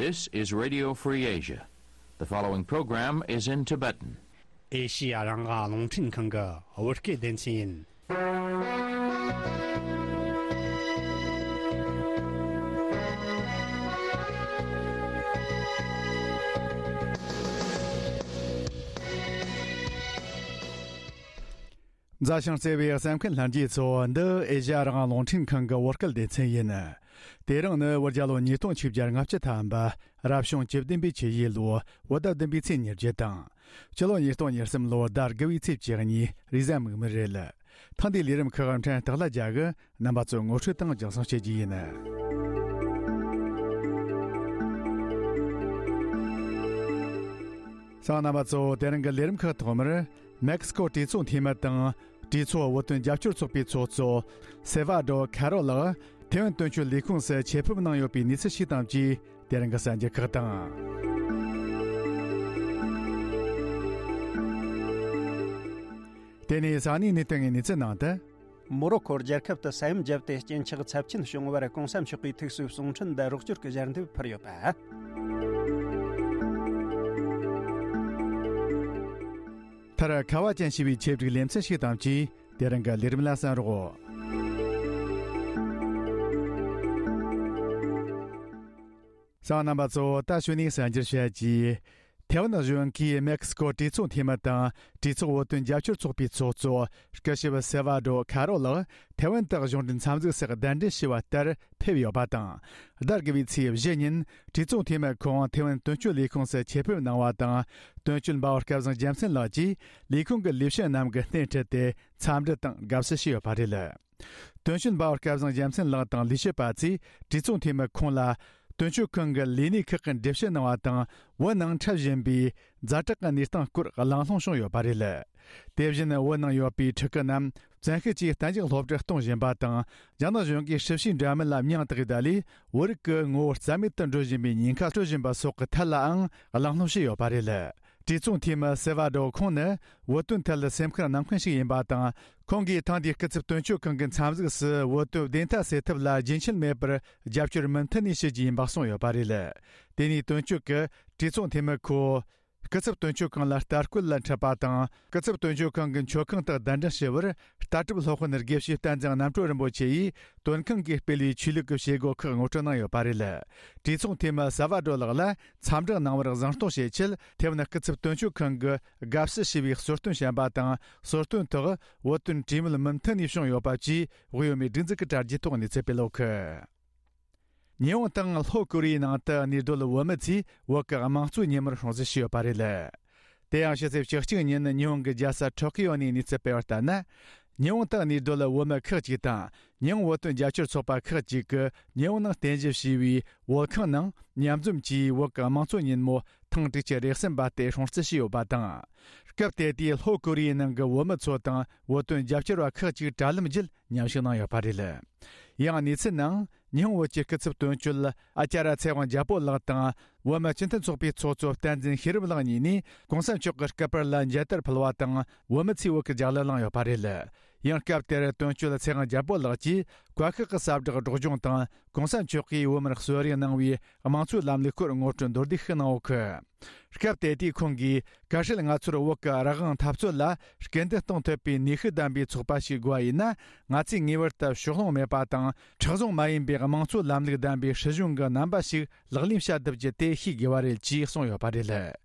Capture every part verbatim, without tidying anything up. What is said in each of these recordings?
This is Radio Free Asia. The following program is in Tibetan. ཨེ་ཤི་ཡ་རང་དབང་རླུང་འཕྲིན་ཁང་གི་བོད་སྐད་སྡེ་ཚན་ཡིན། མཛའ་ཞིང་བརྩེ་བའི་གསན་མཁན་ལྷན་རྒྱས་ཚོ། འདི་ཨེ་ཤ་ཡ་རང་དབང་རླུང་འཕྲིན་ཁང་གི་བོད་སྐད་སྡེ་ཚན་ཡིན། དེ་རིང་ནི་བོད་རྒྱལ་ལོ་ཉིས་སྟོང་ཆིག་བརྒྱ་ལྔ་བཅུ་ཐམ་པ། རབ་བྱུང་བཅུ་བདུན་པའི་ཆུ་ཡོས་ལོ་བོད་ཟླ་བདུན་པའི་ཚེས་ཉེར་བརྒྱད་དང་། སྤྱི་ལོ་ཉིས་སྟོང་ཉེར་གསུམ་ལོ་ཟླ་དགུ་བའི་ཚེས་བཅུ་གཉིས། རེས་གཟའ་མིག་དམར་རེད། ཐེངས་འདིའི་ལས་རིམ་ཁག་ཕྲན་སྟག་ལྷ་རྒྱལ་གྱིས་རྣམ་པ་ཚོར་ངོ་སྤྲོད་དང་སྦྱང་བརྩོན་བྱེད་རྒྱུ་ཡིན། གསན་མཁན་རྣམ་པ་ཚོ། དེ་རིང་གི་ལས་རིམ་ཁག་ཐོག་མར། མེག་སི་ཀོ་གྲོས་ཚོགས་འཐུས་མི་དང་གྲོས་ཚོགས་བོད་དོན་རྒྱབ་སྐྱོར་ཚོགས་པའི་ཚོགས་གཙོ་སེ་ཝ་ཌོ་ཁ་རོ་ལགས་ཐེ་ཝན་དོན་གཅོད་ལས་ཁུངས་སུ་ཆེད་ཕེབས་གནང་ཡོད་པའི་གནས་ཚུལ་ཞིག་དང་བཅས། དེ་རིང་གི་གསར་འགྱུར་ཁག་དང་། དེ་ནས་ས་གནས་གནས་སྟངས་ཀྱི་གནས་ཚུལ་ནང་དུ། མོ་རོ་ཁོ་རྒྱལ་ཁབ་ཏུ་ས་ཡོམ་བརྒྱབ་སྟེ་རྐྱེན་ཆག་ཚབས་ཆེན་བྱུང་བར་གོང་ས་མཆོག་གིས་ཐུགས་གསོའི་གསུང་འཕྲིན་དང་རོགས་སྐྱོར་གྱི་ཞལ་འདེབས་ཕུལ་ཡོད་པ། མཐར་ཁ་བ་ཅན་ཞེས་པའི་ཆེད་བསྒྲིགས་ལེ་ཚན་ཞིག་དང་བཅས། དེ་རིང་གི་ལས་རིམ་ལ་གསན་རོགས། གསན་མཁན་རྣམ་པ་ཚོ། ད་གཞུག་ནས་གསར་འགྱུར་བཤད་རྒྱུ། ཐེ་ཝན་གཞུང་གིས་མེག་སི་ཀོ་གྲོས་ཚོགས་འཐུས་མི་དང་གྲོས་ཚོགས་བོད་དོན་རྒྱབ་སྐྱོར་ཚོགས་པའི་ཚོགས་གཙོ་སྐུ་ཞབས་སེ་ཝ་ཌོ་ཁ་རོ་ལགས་ཐེ་ཝན་དུ་གཞུང་འབྲེལ་འཚམས་གཟིགས་སུ་གདན་འདྲེན་ཞུས་པ་ལྟར་ཕེབས་ཡོད་པ་དང་། ཟླ་དགུ་བའི་ཚེས་བཞི་ཉིན་གྲོས་ཚོགས་འཐུས་མི་ཁོང་ཐེ་ཝན་དོན་གཅོད་ལས་ཁུངས་སུ་ཆེད་ཕེབས་གནང་བ་དང་། དོན་གཅོད་འབའ་བ་སྐལ་བཟང་རྒྱལ་མཚན་ལགས་ཀྱིས་ལས་ཁུངས་ཀྱི་ལས་བྱེད་རྣམས་ཀྱི་སྣེ་ཁྲིད་དེ་འཚམས་འདྲི་དང་དགའ་བསུ་ཞུས་ཡོད་པ་རེད། དོན་གཅོད་འབའ་བ་སྐལ་བཟང་རྒྱལ་མཚན་ལགས་དང་ལས་བྱེད་པ་ཚོས་གྲོས་ཚོགས་འཐུས་མི་ཁོང་ལ་དོན་གཅོད་ཁང་གི་ལས་སྣེ་ཁག་གི་འགྲེལ་བཤད་གནང་བ་དང་། བོད་ནང་འཁྲབ་བཞིན་པའི་ཛ་དྲག་གི་གནས་སྟངས་སྐོར་གླེང་སློང་བྱུང་ཡོད་པ་རེད། དེ་བཞིན་བོད་ནང་ཡོད་པའི་ཕྲུ་གུ་རྣམས་བཙན་ཤེད་ཀྱིས་གཏན་འཇགས་སློབ་གྲྭར་གཏོང་བཞིན་པ་དང་། རྒྱ་ནག་གཞུང་གིས་སྲིད་བྱུས་འདྲ་མིན་ལ་མིང་བཏགས་ཡོད་ལས། བོད་རིགས་ཀྱི་ངོ་བོ་རྩ་མེད་དུ་འགྲོ་བཞིན་པའི་ཉེན་ཁ་སྤྲོད་བཞིན་པ་སོགས་ཀྱི་ཐད་ལའང་གླེང་སློང་བྱས་ཡོད་པ་རེད། གྲོས་ཚོགས་འཐུས་མི་སེ་ཝ་ཌོ་ཁོང་ནི་བོད་དོན་ཐད་ལ་སེམས་ཁུར་གནང་མཁན་ཞིག་ཡིན་པ་དང་། ཁོང་གིས་ཐེངས་འདིའི་སྐུ་ཚབ་དོན་གཅོད་ཁང་གི་འཚམས་གཟིགས་སུ་བོད་དོན་བདེན་མཐའ་གསལ་ཐབས་ལ་རྒྱུན་ཆད་མེད་པར་རྒྱབ་སྐྱོར་མུ་མཐུད་ནས་ཞུ་རྒྱུ་ཡིན་པ་གསུངས་ཡོད་པ་རེད། དེ་ནས་དོན་གཅོད་ཀྱིས་གྲོས་ཚོགས་འཐུས་མི་ཁོ་སྐུ་ཚབ་དོན་གཅོད་ཁང་ལ་ལྟ་སྐུལ་ལ་འཁྲིད་པ་དང་། སྐུ་ཚབ་དོན་གཅོད་ཁང་གི་མཆོད་ཁང་དུ་གདན་འདྲེན་ཞུ་བར། ལྟ་གྲུབ་སློབ་དཔོན་དགེ་བཤེས་བསྟན་འཛིན་རྣམ་གྲོལ་རིན་པོ་ཆེ་ཡིས་དོན་ཁང་གིས་སྤེལ་བའི་ཆོས་ལུགས་ཀྱི་བྱེད་སྒོ་ཁག་ངོ་སྤྲོད་གནང་ཡོད་པ་རེད། གྲོས་ཚོགས་འཐུས་མི་ཟ་བ་སྒྲོལ་ལགས་ལ་འཚམས་འདྲི་གནང་བར་གཟེངས་གཏོང་བྱེད་ཆེད། ཐེ་ཝན་སྐུ་ཚབ་དོན་གཅོད་ཁང་གི་དགའ་བསུ་ཞུ་བའི་གསོལ་སྟོན་བྱོན་པ་དང་། གསོལ་སྟོན་ཐོག་བོད་དོན་གྲོས་མོལ་མུ་མཐུད་ནས་བྱུང་ཡོད་པ་བཅས། དབུས་བོད་མིའི་སྒྲིག་འཛུགས་ཀྱི་དྲ་རྒྱའི་ཐོག་གནས་ཚུལ་སྤེལ་ཡོད་གི། ཉི་ཧོང་དང་ལྷོ་ཀོ་རི་ཡའི་ནང་དུ་གནས་སྡོད་བོད་མི་ཚོས་བོད་ཀྱི་དམངས་གཙོའི་ཉིན་མོར་སྲུང་བརྩི་ཞུས་ཡོད་པ་རེད། དེ་ཡང་ཕྱི་ཚེས་བཅུ་གཅིག་ཉིན་ཉི་ཧོང་གི་རྒྱལ་ས་ཊོ་ཀི་ཡོ་ནས་གནས་ཚུལ་སྤེལ་བར་ལྟར་ན། ཉི་ཧོང་དུ་གནས་སྡོད་བོད་མི་ཁག་ཅིག་དང་། ཉི་ཧོང་བོད་དོན་རྒྱབ་སྐྱོར་ཚོགས་པ་ཁག་ཅིག་གིས་ཉི་ཧོང་ནང་རྟེན་གཞི་བྱས་པའི་བོད་ཁང་ནང་མཉམ་འཛོམས་ཀྱིས་བོད་ཀྱི་དམངས་གཙོ་ཉིན་མོ་ཐེངས་དྲུག་ཅུ་རེ་གསུམ་པ་དེ་སྲུང་བརྩི་ཞུས་ཡོད་པ་དང་། སྐབས་དེ་དུས་ལྷོ་ཀོ་རི་ཡའི་ནང་གི་བོད་མི་ཚོ་དང་བོད་དོན་རྒྱབ་སྐྱོར་བ་ཁག་ཅིག་དྲ་ལམ་བརྒྱུད་མཉམ་ཞུགས་གནང་ཡོད་པ་རེད། ཡང་གནས་ཚུལ་ནང་། ཉི་ཧོང་བོད་ཀྱི་སྐུ་ཚབ་དོན་གཅོད་ཨ་ཅཱ་ར་ཚེ་དབང་རྒྱལ་པོ་ལགས་དང་། བོད་མི་སྤྱི་མཐུན་ཚོགས་པའི་ཚོགས་གཙོ་བསྟན་འཛིན་ཤེས་རབ་ལགས་གཉིས་ནས་གོང་ས་མཆོག་གི་སྐུ་པར་ལ་མཇལ་དར་ཕུལ་བ་དང་། བོད་མི་ཚོས་བོད་ཀྱི་རྒྱལ་གླུ་བླངས་ཡོད་པ་རེད། ཡང་སྐབས་དེར་དོན་གཅོད་ཚེ་དབང་རྒྱལ་པོ་ལགས་ཀྱིས་བཀའ་ཤག་གི་ཟབ་སྦྲགས་སྒྲོག་སྦྱོང་དང་། གོང་ས་མཆོག་གིས་བོད་མིར་གསོལ་རས་གནང་བའི་དམངས་གཙོའི་ལམ་ལུགས་སྐོར་ངོ་སྤྲོད་མདོར་བསྡུས་ཤིག་གནང་ཡོད་གི། སྐབས་དེ་དུས་ཁོང་གིས། གལ་སྲིད་ང་ཚོར་བོད་ཀྱི་རང་དབང་འཐབ་རྩོད་ལ་སྐུལ་འདེད་གཏོང་ཐུབ་པའི་ནུས་ཤུགས་ལྡན་པའི་ཚོགས་པ་ཞིག་དགོས་པ་ཡིན་ན། ང་ཚོས་ངེས་པར་དུ་ཕྱོགས་ལྷུང་མེད་པ་དང་། མཁྲེགས་བཟུང་མ་ཡིན་པའི་དམངས་གཙོ་ལམ་ལུགས་ལྡན་པའི་སྲིད་གཞུང་གི་རྣམ་པ་ཞིག་ལག་ལེན་བྱ་ཐུབ་རྒྱུ་དེ་ཤེས་དགོས་པ་རེད་ཅེས་གསུངས་ཡོད་པ་རེད།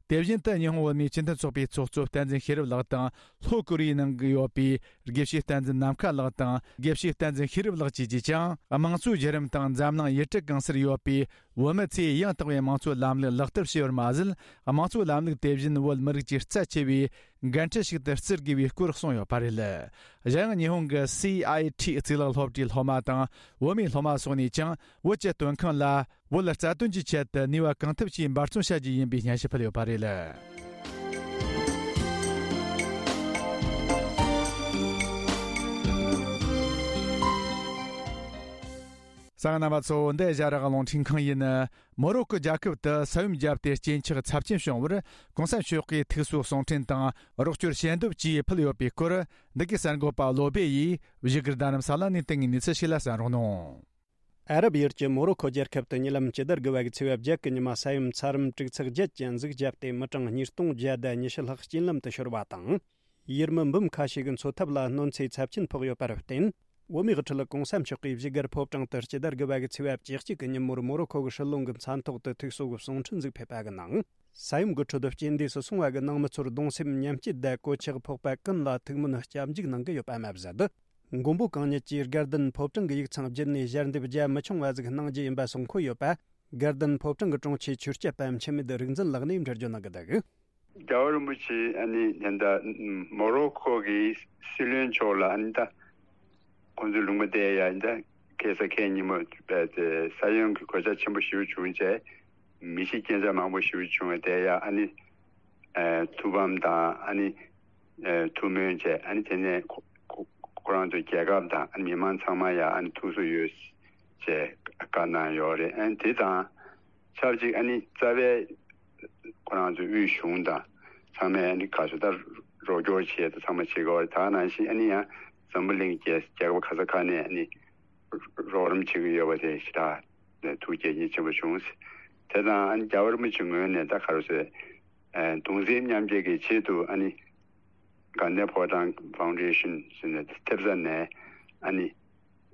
དེ་བཞིན་དུ་ཉི་ཧོང་བོད་མིའི་སྤྱི་མཐུན་ཚོགས་པའི་ཚོགས་གཙོ་བསྟན་འཛིན་ཤེས་རབ་ལགས་དང་། ལྷོ་ཀོ་རི་ཡའི་ནང་གི་ཡོད་པའི་དགེ་བཤེས་བསྟན་འཛིན་ནམ་མཁའ་ལགས་དང་། དགེ་བཤེས་བསྟན་འཛིན་ཤེས་རབ་ལགས་བཅས་ཀྱིས་ཀྱང་། དམངས་གཙོའི་བརྒྱུད་རིམ་དང་འཛམ་གླིང་ཡུལ་གྲུ་གང་སར་ཡོད་པའི་བོད་མི་ཚོས་ཡང་དག་པའི་དམངས་གཙོའི་ལམ་ལུགས་ལག་བསྟར་བྱས་པར་མ་ཟད། དམངས་གཙོའི་ལམ་ལུགས་དེ་བཞིན་བོད་མི་རིགས་ཀྱི་རྩ་ཆེ་བའི་འགན་འཁྲི་ཞིག་ཏུ་བརྩི་དགོས་པའི་སྐོར་གསུངས་ཡོད་པ་རེད། གཞན་ཡང་ཉི་ཧོང་གི་སི་ཨའི་ཊི་གཙུག་ལག་སློབ་གྲྭའི་སློབ་མ་དང་བོད་མིའི་སློབ་མ་སོགས་ནས་ཀྱང་བོད་ཀྱི་དོན་ཁང་ལ་བོད་རྩ་དོན་གྱི་ཆེད་དུ་ནུས་པ་གང་ཐུབ་ཀྱིས་འབད་བརྩོན་བྱ་རྒྱུ་ཡིན་པའི་སྙན་ཞུ་ཕུལ་ཡོད་པ་རེད། གསན་མཁན་རྣམ་པ་ཚོ། འདི་ཨེ་ཤ་ཡ་རང་དབང་རླུང་འཕྲིན་ཁང་ཡིན། མོ་རོ་ཀོ་རྒྱལ་ཁབ་ཏུ་ས་ཡོམ་བརྒྱབ་སྟེ་རྐྱེན་ཆག་ཚབས་ཆེན་བྱུང་བར་གོང་ས་མཆོག་གིས་ཐུགས་གསོའི་གསུང་འཕྲིན་དང་རོགས་སྐྱོར་ཞལ་འདེབས་བཅས་ཕུལ་ཡོད་པའི་སྐོར། འདི་གའི་གསར་འགོད་པ་བློ་སྦེ་ཡིས་བཞུགས་སྒར་རྡ་རམ་ས་ལ་ནས་བཏང་བའི་གནས་ཚུལ་ཞིག་ལ་གསན་རོགས་གནང་། ཨ་རབ་ཡུལ་གྱི་མོ་རོ་ཁོ་རྒྱལ་ཁབ་ཏུ་ཉེ་ལམ་སྤྱི་ཟླ་དགུ་པ་གི་ཚེས་པ་བརྒྱད་ཀྱི་ཉི་མ་ས་ཡོམ་ཚ་རམ་དྲུག་ཚེག་བརྒྱད་ཀྱི་ཟུག་བརྒྱབ་སྟེ། མི་གྲངས་ཉིས་སྟོང་བརྒྱ་དང་ཉི་ཤུ་ལྷག་རྐྱེན་ལམ་དུ་ཤོར་བ་དང་། ཡུལ་མི་འབུམ་ཁ་ཤས་ཀྱི་འཚོ་ཐབས་ལ་གནོད་འཚེ་ཚབས་ཆེན་ཕོག་ཡོད་པར་བརྟེན། བོད་མིའི་དབུ་ཁྲིད་གོང་ས་མཆོག་གིས་བཞུགས་སྒར་ཕོ་བྲང་དུ་སྤྱི་ཟླ་དགུ་པ་གི་ཚེས་པ་བཅུ་གཅིག་གི་ཉིན་མོར་མོ་རོ་ཁོ་གི་སྲིད་བློན་གྱི་མཚན་ཐོག་ཏུ་ཐུགས་གསོ་གི་གསུང་འཕྲིན་ཟིག་ཕེབས་པ་གི་ནང་། ས་ཡོམ་གྱི་ཁྲོད་རྐྱེན་འདས་སུ་སོང་བ་གི་ནང་མི་ཚོར་གདུང་སེམས་མཉམ་སྐྱེད་དང་གོད་ཆག་ཕོག་པ་ཀུན་ལ་ཐུགས་སྨོན་སྐྱབས་འཇུག་གནང་གི་ཡོད་པ་མ་ཟད། མགོན་པོ་གང་ཉིད་ཀྱིས་དགའ་ལྡན་ཕོ་བྲང་གི་ཡིག་ཚང་བརྒྱུད་ནས་ཞལ་འདེབས་རྒྱ་མི་ཆུང་བ་ཟིག་གནང་རྒྱུ་ཡིན་པ་གསུང་འཁོད་ཡོད་པ། དགའ་ལྡན་ཕོ་བྲང་གི་དྲུང་ཆེ་ཆོས་སྐྱབས་པ་འཆི་མེད་རིག་འཛིན་ལགས་ནས་འགྲེལ་བརྗོད་གནང་གི་འདུག། རྒྱལ་བ་རིན་པོ་ཆེ་ཨ་ནི་ད་ལྟ་མོ་རོ་ཁོ་གི་སྲིད་བློན་མཆོག་ལ་ཨ་ནི་ད་ཁོང་ཚོའི་ལུང་པ་དེ་ཡ་ད་ཁ་སང་ཁ་ཉིན་མོ་ས་ཡོམ་གྱི་གོད་ཆག་ཆེན་པོ་ཞེ་པོ་བྱུང་རྗེས། མི་ཤི་རྐྱེན་ངན་མང་པོ་ཞེ་པོ་བྱུང་བ་དེ་ཡ་ཨ་ནི་ཐུགས་ཕམ་དང་ཨ་ནི་ཐུགས་སྨོན་བྱས། ཨ་ནི་དེ་ནས་ཁོ་ཁོ་ཁོ་རང་ཚོའི་རྒྱལ་ཁབ་དང་ཨ་ནི་མི་མང་ཚང་མ་ཡ་ཨ་ནི་ཐུགས་གསོ་ཡོད་ཅེས་བཀའ་གནང་ཡོད་རེད། ཨ་ནི་དེ་དང་ཆབས་ཅིག་ཨ་ནི་རྩ་བའི་ཁོ་རང་ཚོའི་དབུས་གཞུང་དང་ཚང་མས་ཨ་ནི་ག་ཚོད་ད་རོགས་སྐྱོར་བྱས་དང་ཚང་མ་བྱེད་དགོས་པ་རེད། ད་ནང་བཞིན་ཨ་ནི་ཡང་འཛམ་བུ་གླིང་རྒྱལ་རྒྱལ་ཁབ་ག་ས་ག་ནས་ཨ་ནི་རོགས་རམ་བྱེད་ཀྱི་ཡོད་པ་དེ་ཞེ་དྲག་ཐུགས་དགྱེས་མཉེས་ཆེན་པོ་བྱུང་། དེ་དང་ཨ་ནི་རྒྱལ་བ་རིན་པོ་ཆེ་ངོས་ནས་ད་ག་རེ་ཟེར། ཨ་གདུང་སེམས་མཉམ་སྐྱེད་ཀྱི་ཆེད་དུ་ཨ་ནི་དགའ་ལྡན་ཕོ་བྲང་ཕའུན་ཌེ་ཤན་ཟེར་ནས་ཐེབས་རྩ་ནས་ཨ་ནི་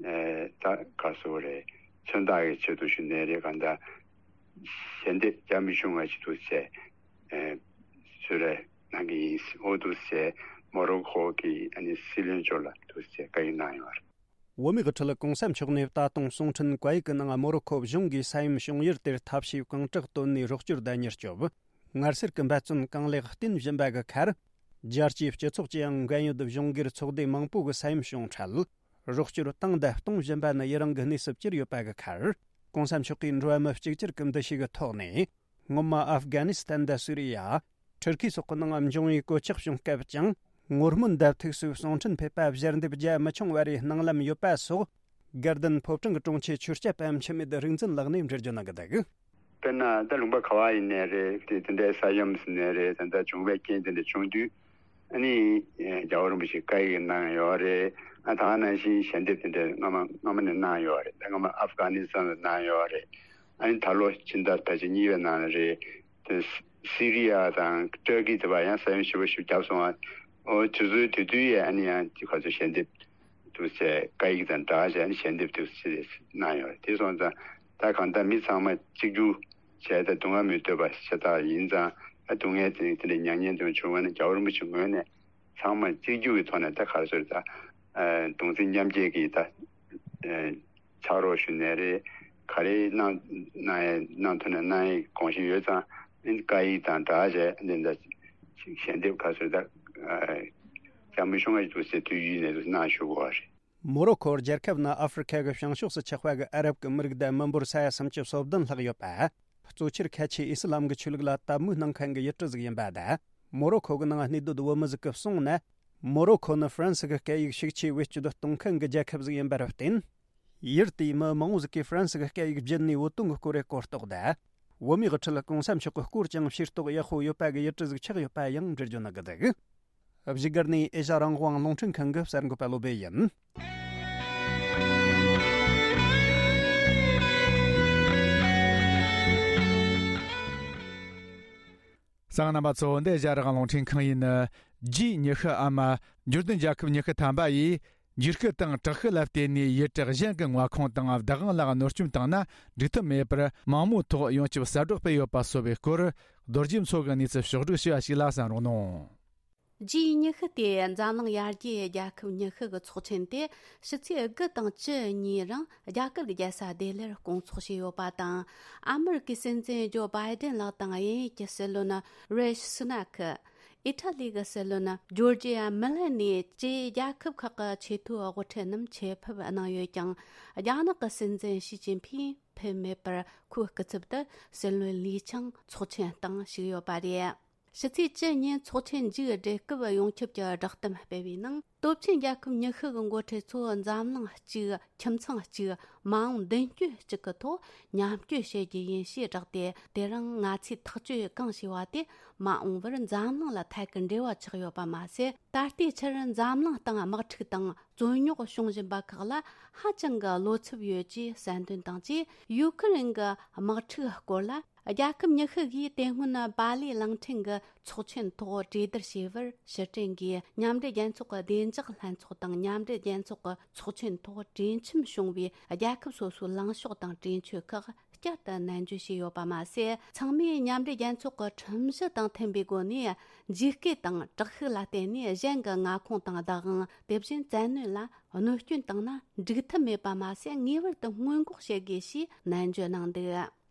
ཨ་ད་ག་རེ་ཟེར་རེད། མཚོན་རྟགས་ཀྱི་ཆེད་དུ་ཞུ་ནས་རེད། གང་ལྟར་ཞལ་འདེབས་རྒྱ་མི་ཆུང་བ་ཞིག་འདུག་ཟེར་ཨ་གསོལ་རས་གནང་གི་ཡིན། འོ་འདུག་ཟེར་མོ་རོ་ཁོ་གི་ཨ་ནི་སྲིད་བློན་མཆོག་ལ་འདུག་ཟེར་བཀའ་ཡིག་གནང་ཡོད་རེད། བོད་མིའི་དབུ་ཁྲིད་གོང་ས་མཆོག་ནས་ད་དུང་གསུང་འཕྲིན་བཀའ་ཡིག་གི་ནང་མོ་རོ་ཁོ་གཞུང་གིས་ས་ཡོམ་བྱུང་ཡུལ་དེར་ཐབས་ཤེས་གང་དྲག་བཏོན་ནས་རོགས་སྐྱོར་དང་མྱུར་སྐྱོབ། ངལ་སེལ་གྱི་འབད་བརྩོན་གང་ལེགས་བསྟེན་བཞིན་པ་གི་ཁར། རྒྱལ་སྤྱིའི་སྤྱི་ཚོགས་ཀྱིས་ཡང་འགན་ཡོད་གཞུང་སྒེར་ཚོགས་སྡེ་མང་པོ་གི་ས་ཡོམ་བྱུང་འཕྲལ། རོགས་སྐྱོར་བཏང་དང་གཏོང་བཞིན་པ་ནི་ཡི་རང་གི་གནས་སུ་གྱུར་ཡོད་པ་གི་ཁར། གོང་ས་མཆོག་གིས་འགྲོ་བ་མི་གཅིག་གྱུར་གྱི་འདུ་ཤེས་ཀྱི་ཐོག་ནས། སྔོན་མ་ཨབ་གྷ་ནི་སི་ཐན་དང་སུ་རི་ཡ། ཊུར་ཁི་སོགས་ཀྱི་ནང་འབྱུང་བའི་གོད་ཆག་བྱུང་སྐབས་ཀྱང་ངོ་སྨོན་དང་ཐུགས་གསོའི་གསུང་འཕྲིན་ཕེབས་པ་ཞལ་འདེབས་རྒྱ་མི་ཆུང་བ་རེ་གནང་ལམ་ཡོད་པ་སོགས། དགའ་ལྡན་ཕོ་བྲང་གི་དྲུང་ཆེ་ཆོས་སྐྱབས་པ་འཆི་མེད་རིག་འཛིན་ལགས་ནས་འགྲེལ་བརྗོད་གནང་གི་འདུག། དཔེར་ན་ད་ལུང་པ་ག་བ་ཡིན་ནའི་རེད། དེ་དེ་འདྲའི་ས་ཡོམ་ཟེར་ནའི་རེད། ད་ལྟ་བྱུང་བའི་རྐྱེན་དེ་འདྲ་བྱུང་དུས་ཨ་ནི་རྒྱལ་བ་རིན་པོ་ཆེ་བཀའ་ཡིག་གནང་ཡོད་རེད། ཨ་ད་ག་ནང་བཞིན་ཞལ་འདེབས་དེ་འདྲ་སྔ་མ་སྔ་མ་ནས་གནང་ཡོད་རེད། ད་སྔ་མ་ཨབ་གྷ་ནི་སི་ཐན་ལ་གནང་ཡོད་རེད། ཨ་ནི་ད་ལོ་ཕྱི་ཟླ་ད་ཕྱི་གཉིས་པའི་ནང་ལ་རེད། དེ་སི་རི་ཡ་དང་ཏུར་ཀི་དེ་བ་ཡང་ས་ཡོམ་ཞེ་པོ་ཞིག་བརྒྱབ་སོང་བ། འོ་དེ་ཚོའི་དེ་དུས་ཡས་ཨ་ནི་ཡང་དེ་ག་ཚོད་ཞལ་འདེབས་དུ་བྱས། བཀའ་ཡིག་དང་སྦྲགས་བྱས་ཨ་ནི་ཞལ་འདེབས་དུ་བྱས་གནང་ཡོད་རེད། དེ་སོང་ཙང་ད་གང་ལྟར་མི་ཚང་མ་གཅིག་གྱུར་བྱས་ཏེ་སྡུག་བསྔལ་མི་འདོད་པ་ཤ་སྟག་ཡིན་ཙང་། ཨ་སྡུག་བསྔལ་དེ་དེ་འདྲའི་མྱ་ངན་དེ་བྱུང་བ་ན་རྒྱལ་བ་རིན་པོ་ཆེ་ངོས་ནས་ཚང་མ་གཅིག་གྱུར་གྱི་ཐོག་ནས་ད་ག་རེ་ཟེར། ད་གདུང་སེམས་མཉམ་སྐྱེད་ཀྱི་ད་ཕྱག་རོགས་ཞུ་ནའི་རེད། ག་རེ་གནང་གནང་ཡས་གནང་ཐུབ་ན་གནང་ཡས་དགོངས་བཞེས་ཡོད་ཙང་། ཨ་ནི་བཀའ་ཡིག་དང་སྦྲགས་བྱས་ཨ་ནི་ད་ཞལ་འདེབས་ག་རེ་ཟེར། ད་རྒྱ་མི་ཆུང་བ་ཞིག་འདུག་ཟེར་དུས་ཡུལ་ནས་གནང་ཞུ་དགོས་པ་རེད། མོ་རོ་ཁོ་རྒྱལ་ཁབ་ནི་ཨ་ཧྥེ་རི་ཁ་གི་བྱང་ཕྱོགས་སུ་ཆགས་པ་གི་ཨ་རབ་ཀྱི་མི་རིགས་དང་མི་འབོར་ས་ཡ་སུམ་ཅུ་སོ་བདུན་ལྷག་ཡོད་པ། གཙོ་ཆེར་ཁ་ཆེའི་ཨི་སི་ལམ་གྱི་ཆོས་ལུགས་ལ་དད་མོས་གནང་མཁན་གྱི་ཡུལ་གྲུ་ཟིག་ཡིན་པ་དང་། མོ་རོ་ཁོ་གི་ནང་གནས་སྡོད་བོད་མི་ཟིག་གིས་གསུངས་ན། མོ་རོ་ཁོ་ནི་ཧྥ་རན་སི་གི་སྐད་ཡིག་ཤུགས་ཆེ་བེད་སྤྱོད་གཏོང་མཁན་གྱི་རྒྱལ་ཁབ་ཟིག་ཡིན་པར་བརྟེན། ཡུལ་དེའི་མི་མང་བོ་ཟིག་གིས་ཧྥ་རན་སི་གི་སྐད་ཡིག་བརྒྱུད་ནས་བོད་དོན་གྱི་སྐོར་རེ་གོ་རྟོགས་དང་། བོད་མིའི་དབུ་ཁྲིད་གོང་ས་མཆོག་གི་སྐོར་ཀྱང་ཤེས་རྟོགས་ཡག་པོ་ཡོད་པ་གི་ཡུལ་གྲུ་ཟིག་ཆགས་ཡོད་པ་ཡང་འགྲེལ་བརྗོད་གནང་གི་འདུག། བཞུགས་སྒར་ནས་ཨེ་ཤ་རང་དབང་རླུང་འཕྲིན་ཁང་གི་གསར་འགོད་པ་བློ་བྷེ་ཡིན། གསན་མཁན་རྣམ་པ་ཚོ། འདི་ཨེ་ཤ་རང་དབང་རླུང་འཕྲིན་ཁང་ཡིན། ཇུས་ཉི་ཤུའམ་འབྱོར་ལྡན་རྒྱལ་ཁབ་ཉི་ཤུ་ཐམ་པ་ཡིས་འཇིགས་སྐུལ་དང་དྲག་ཤུགས་ལ་བརྟེན་ནས་ཡུལ་གྲུ་གཞན་གྱི་མངའ་ཁོངས་དང་བདག་དབང་ལ་གནོད་སྐྱོན་བཏང་ན་འགྲིག་ཐབས་མེད་པར་མང་མོས་ཐོག་ཡོངས་ཁྱབ་གསལ་བསྒྲགས་སྤེལ་ཡོད་པ་སོགས་པའི་སྐོར། རྡོ་རྗེ་མཚོ་གི་གནས་ཚུལ་ཕྱོགས་བསྒྲིགས་ཞུ་བ་ཞིག་ལ་གསན་རོགས་གནང་། ཇུས་ཉི་ཤུ་དེ་འཛམ་གླིང་ཡར་རྒྱས་རྒྱལ་ཁབ་ཉི་ཤུ་གི་ཚོགས་ཆེན་དེ་ཕྱི་ཚེས་དགུ་དང་བཅུ་གཉིས་རིང་རྒྱ་གར་གྱི་རྒྱལ་ས་ལྡི་ལིར་སྐོང་ཚོགས་བྱས་ཡོད་པ་དང་། ཨ་མི་རི་ཀའི་སྲིད་འཛིན་ཇོ་བྷའི་ཏན་ལགས་དང་དབྱིན་ཡུལ་གྱི་སྲིད་བློན་རེ་ཤི་སུ་ནཱ་ཁི། ཨི་ཊ་ལི་གི་སྲིད་བློན་ཇོར་ཇི་ཡ་མེ་ལོ་ནི་བཅས་རྒྱལ་ཁབ་ཁག་གི་ཆེས་མཐོའི་དབུ་ཁྲིད་རྣམས་ཆེད་ཕེབས་གནང་ཡོད་ཀྱང་། རྒྱ་ནག་གི་སྲིད་འཛིན་ཞི་ཅིན་ཕིང་ཕེབས་མེད་པར་ཁོའི་སྐུ་ཚབ་ཏུ་སྲིད་བློན་ལི་ཆང་ཚོགས་ཆེན་སྟེང་ཞུགས་ཡོད་པ་རེད། ཕྱི་ཚེས་བཅུ་ཉིན་ཚོགས་ཆེན་མཇུག་བསྒྲིལ་སྐབས་ཡོངས་ཁྱབ་ཀྱི་བསྒྲགས་གཏམ་སྤེལ་བའི་ནང་། སྟོབས་ཆེན་རྒྱལ་ཁབ་ཉི་ཤུ་གི་འགོ་ཁྲིད་ཚོ་འཛམ་གླིང་གཅིག་ཁྱིམ་ཚང་གཅིག་མ་འོངས་མདུན་སྐྱོད་གཅིག་གི་ཐོག་མཉམ་སྐྱོད་བྱེད་རྒྱུ་ཡིན་ཞེས་བསྒྲགས་ཏེ། དེ་རིང་ང་ཚོས་ཐག་གཅོད་གང་བྱས་པ་དེ་མ་འོངས་པར་འཛམ་གླིང་ལ་ཐད་ཀར་འབྲེལ་བ་ཆགས་ཡོད་པ་མ་ཟད། ད་ལྟའི་ཆར་འཛམ་གླིང་སྟེང་དམག་འཁྲུག་དང་རྩོད་རྙོག་བྱུང་བཞིན་པ་ཁག་ལ་ཧ་ཅང་གི་བློ་འཚབ་ཡོད་ཅེས་གསལ་འདོན་དང་བཅས། ཡུ་ཁུ་རེན་གྱི་དམག་འཁྲུག་སྐོར་ལ། རྒྱལ་ཁབ་ཉི་ཤུ་གིས་དེ་སྔོན་པཱ་ལི་གླིང་ཕྲན་གྱི་ཚོགས་ཆེན་ཐོག་གྲོས་བསྡུར་བྱས་པར། ཕྱིར་དྲན་གྱིས་མཉམ་འབྲེལ་རྒྱལ་ཚོགས་ཀྱི་བདེ་འཇགས་ལྷན་ཚོགས་དང་། མཉམ་འབྲེལ་རྒྱལ་ཚོགས་ཀྱི་ཚོགས་ཆེན་ཐོག་གྲོས་འཆམ་བྱུང་བའི་རྒྱལ་ཁབ་སོ་སོའི་ལངས་ཕྱོགས་དང་གྲོས་ཆོད་ཁག་བསྐྱར་དུ་ནན་བརྗོད་བྱས་ཡོད་པ་མ་ཟད། ཚང་མས་མཉམ་འབྲེལ་རྒྱལ་ཚོགས་ཀྱི་ཁྲིམས་གཞི་དང་མཐུན་པའི་སྒོ་ནས། ཇུས་བཀོད་དང་དྲག་ཤུགས་ལ་བརྟེན་ནས་གཞན་གྱི་མངའ་ཁོངས་དང་བདག་དབང་། དེ་བཞིན་བཙན་གནོན་ལ་གནོད་སྐྱོན་བཏང་ན་འགྲིག་ཐབས་མེད་པ་མ་ཟད། ངེས་པར་དུ་སྔོན་འགོག་བྱེད་དགོས་ཞེས་ནན་བརྗོད་གནང་འདུག།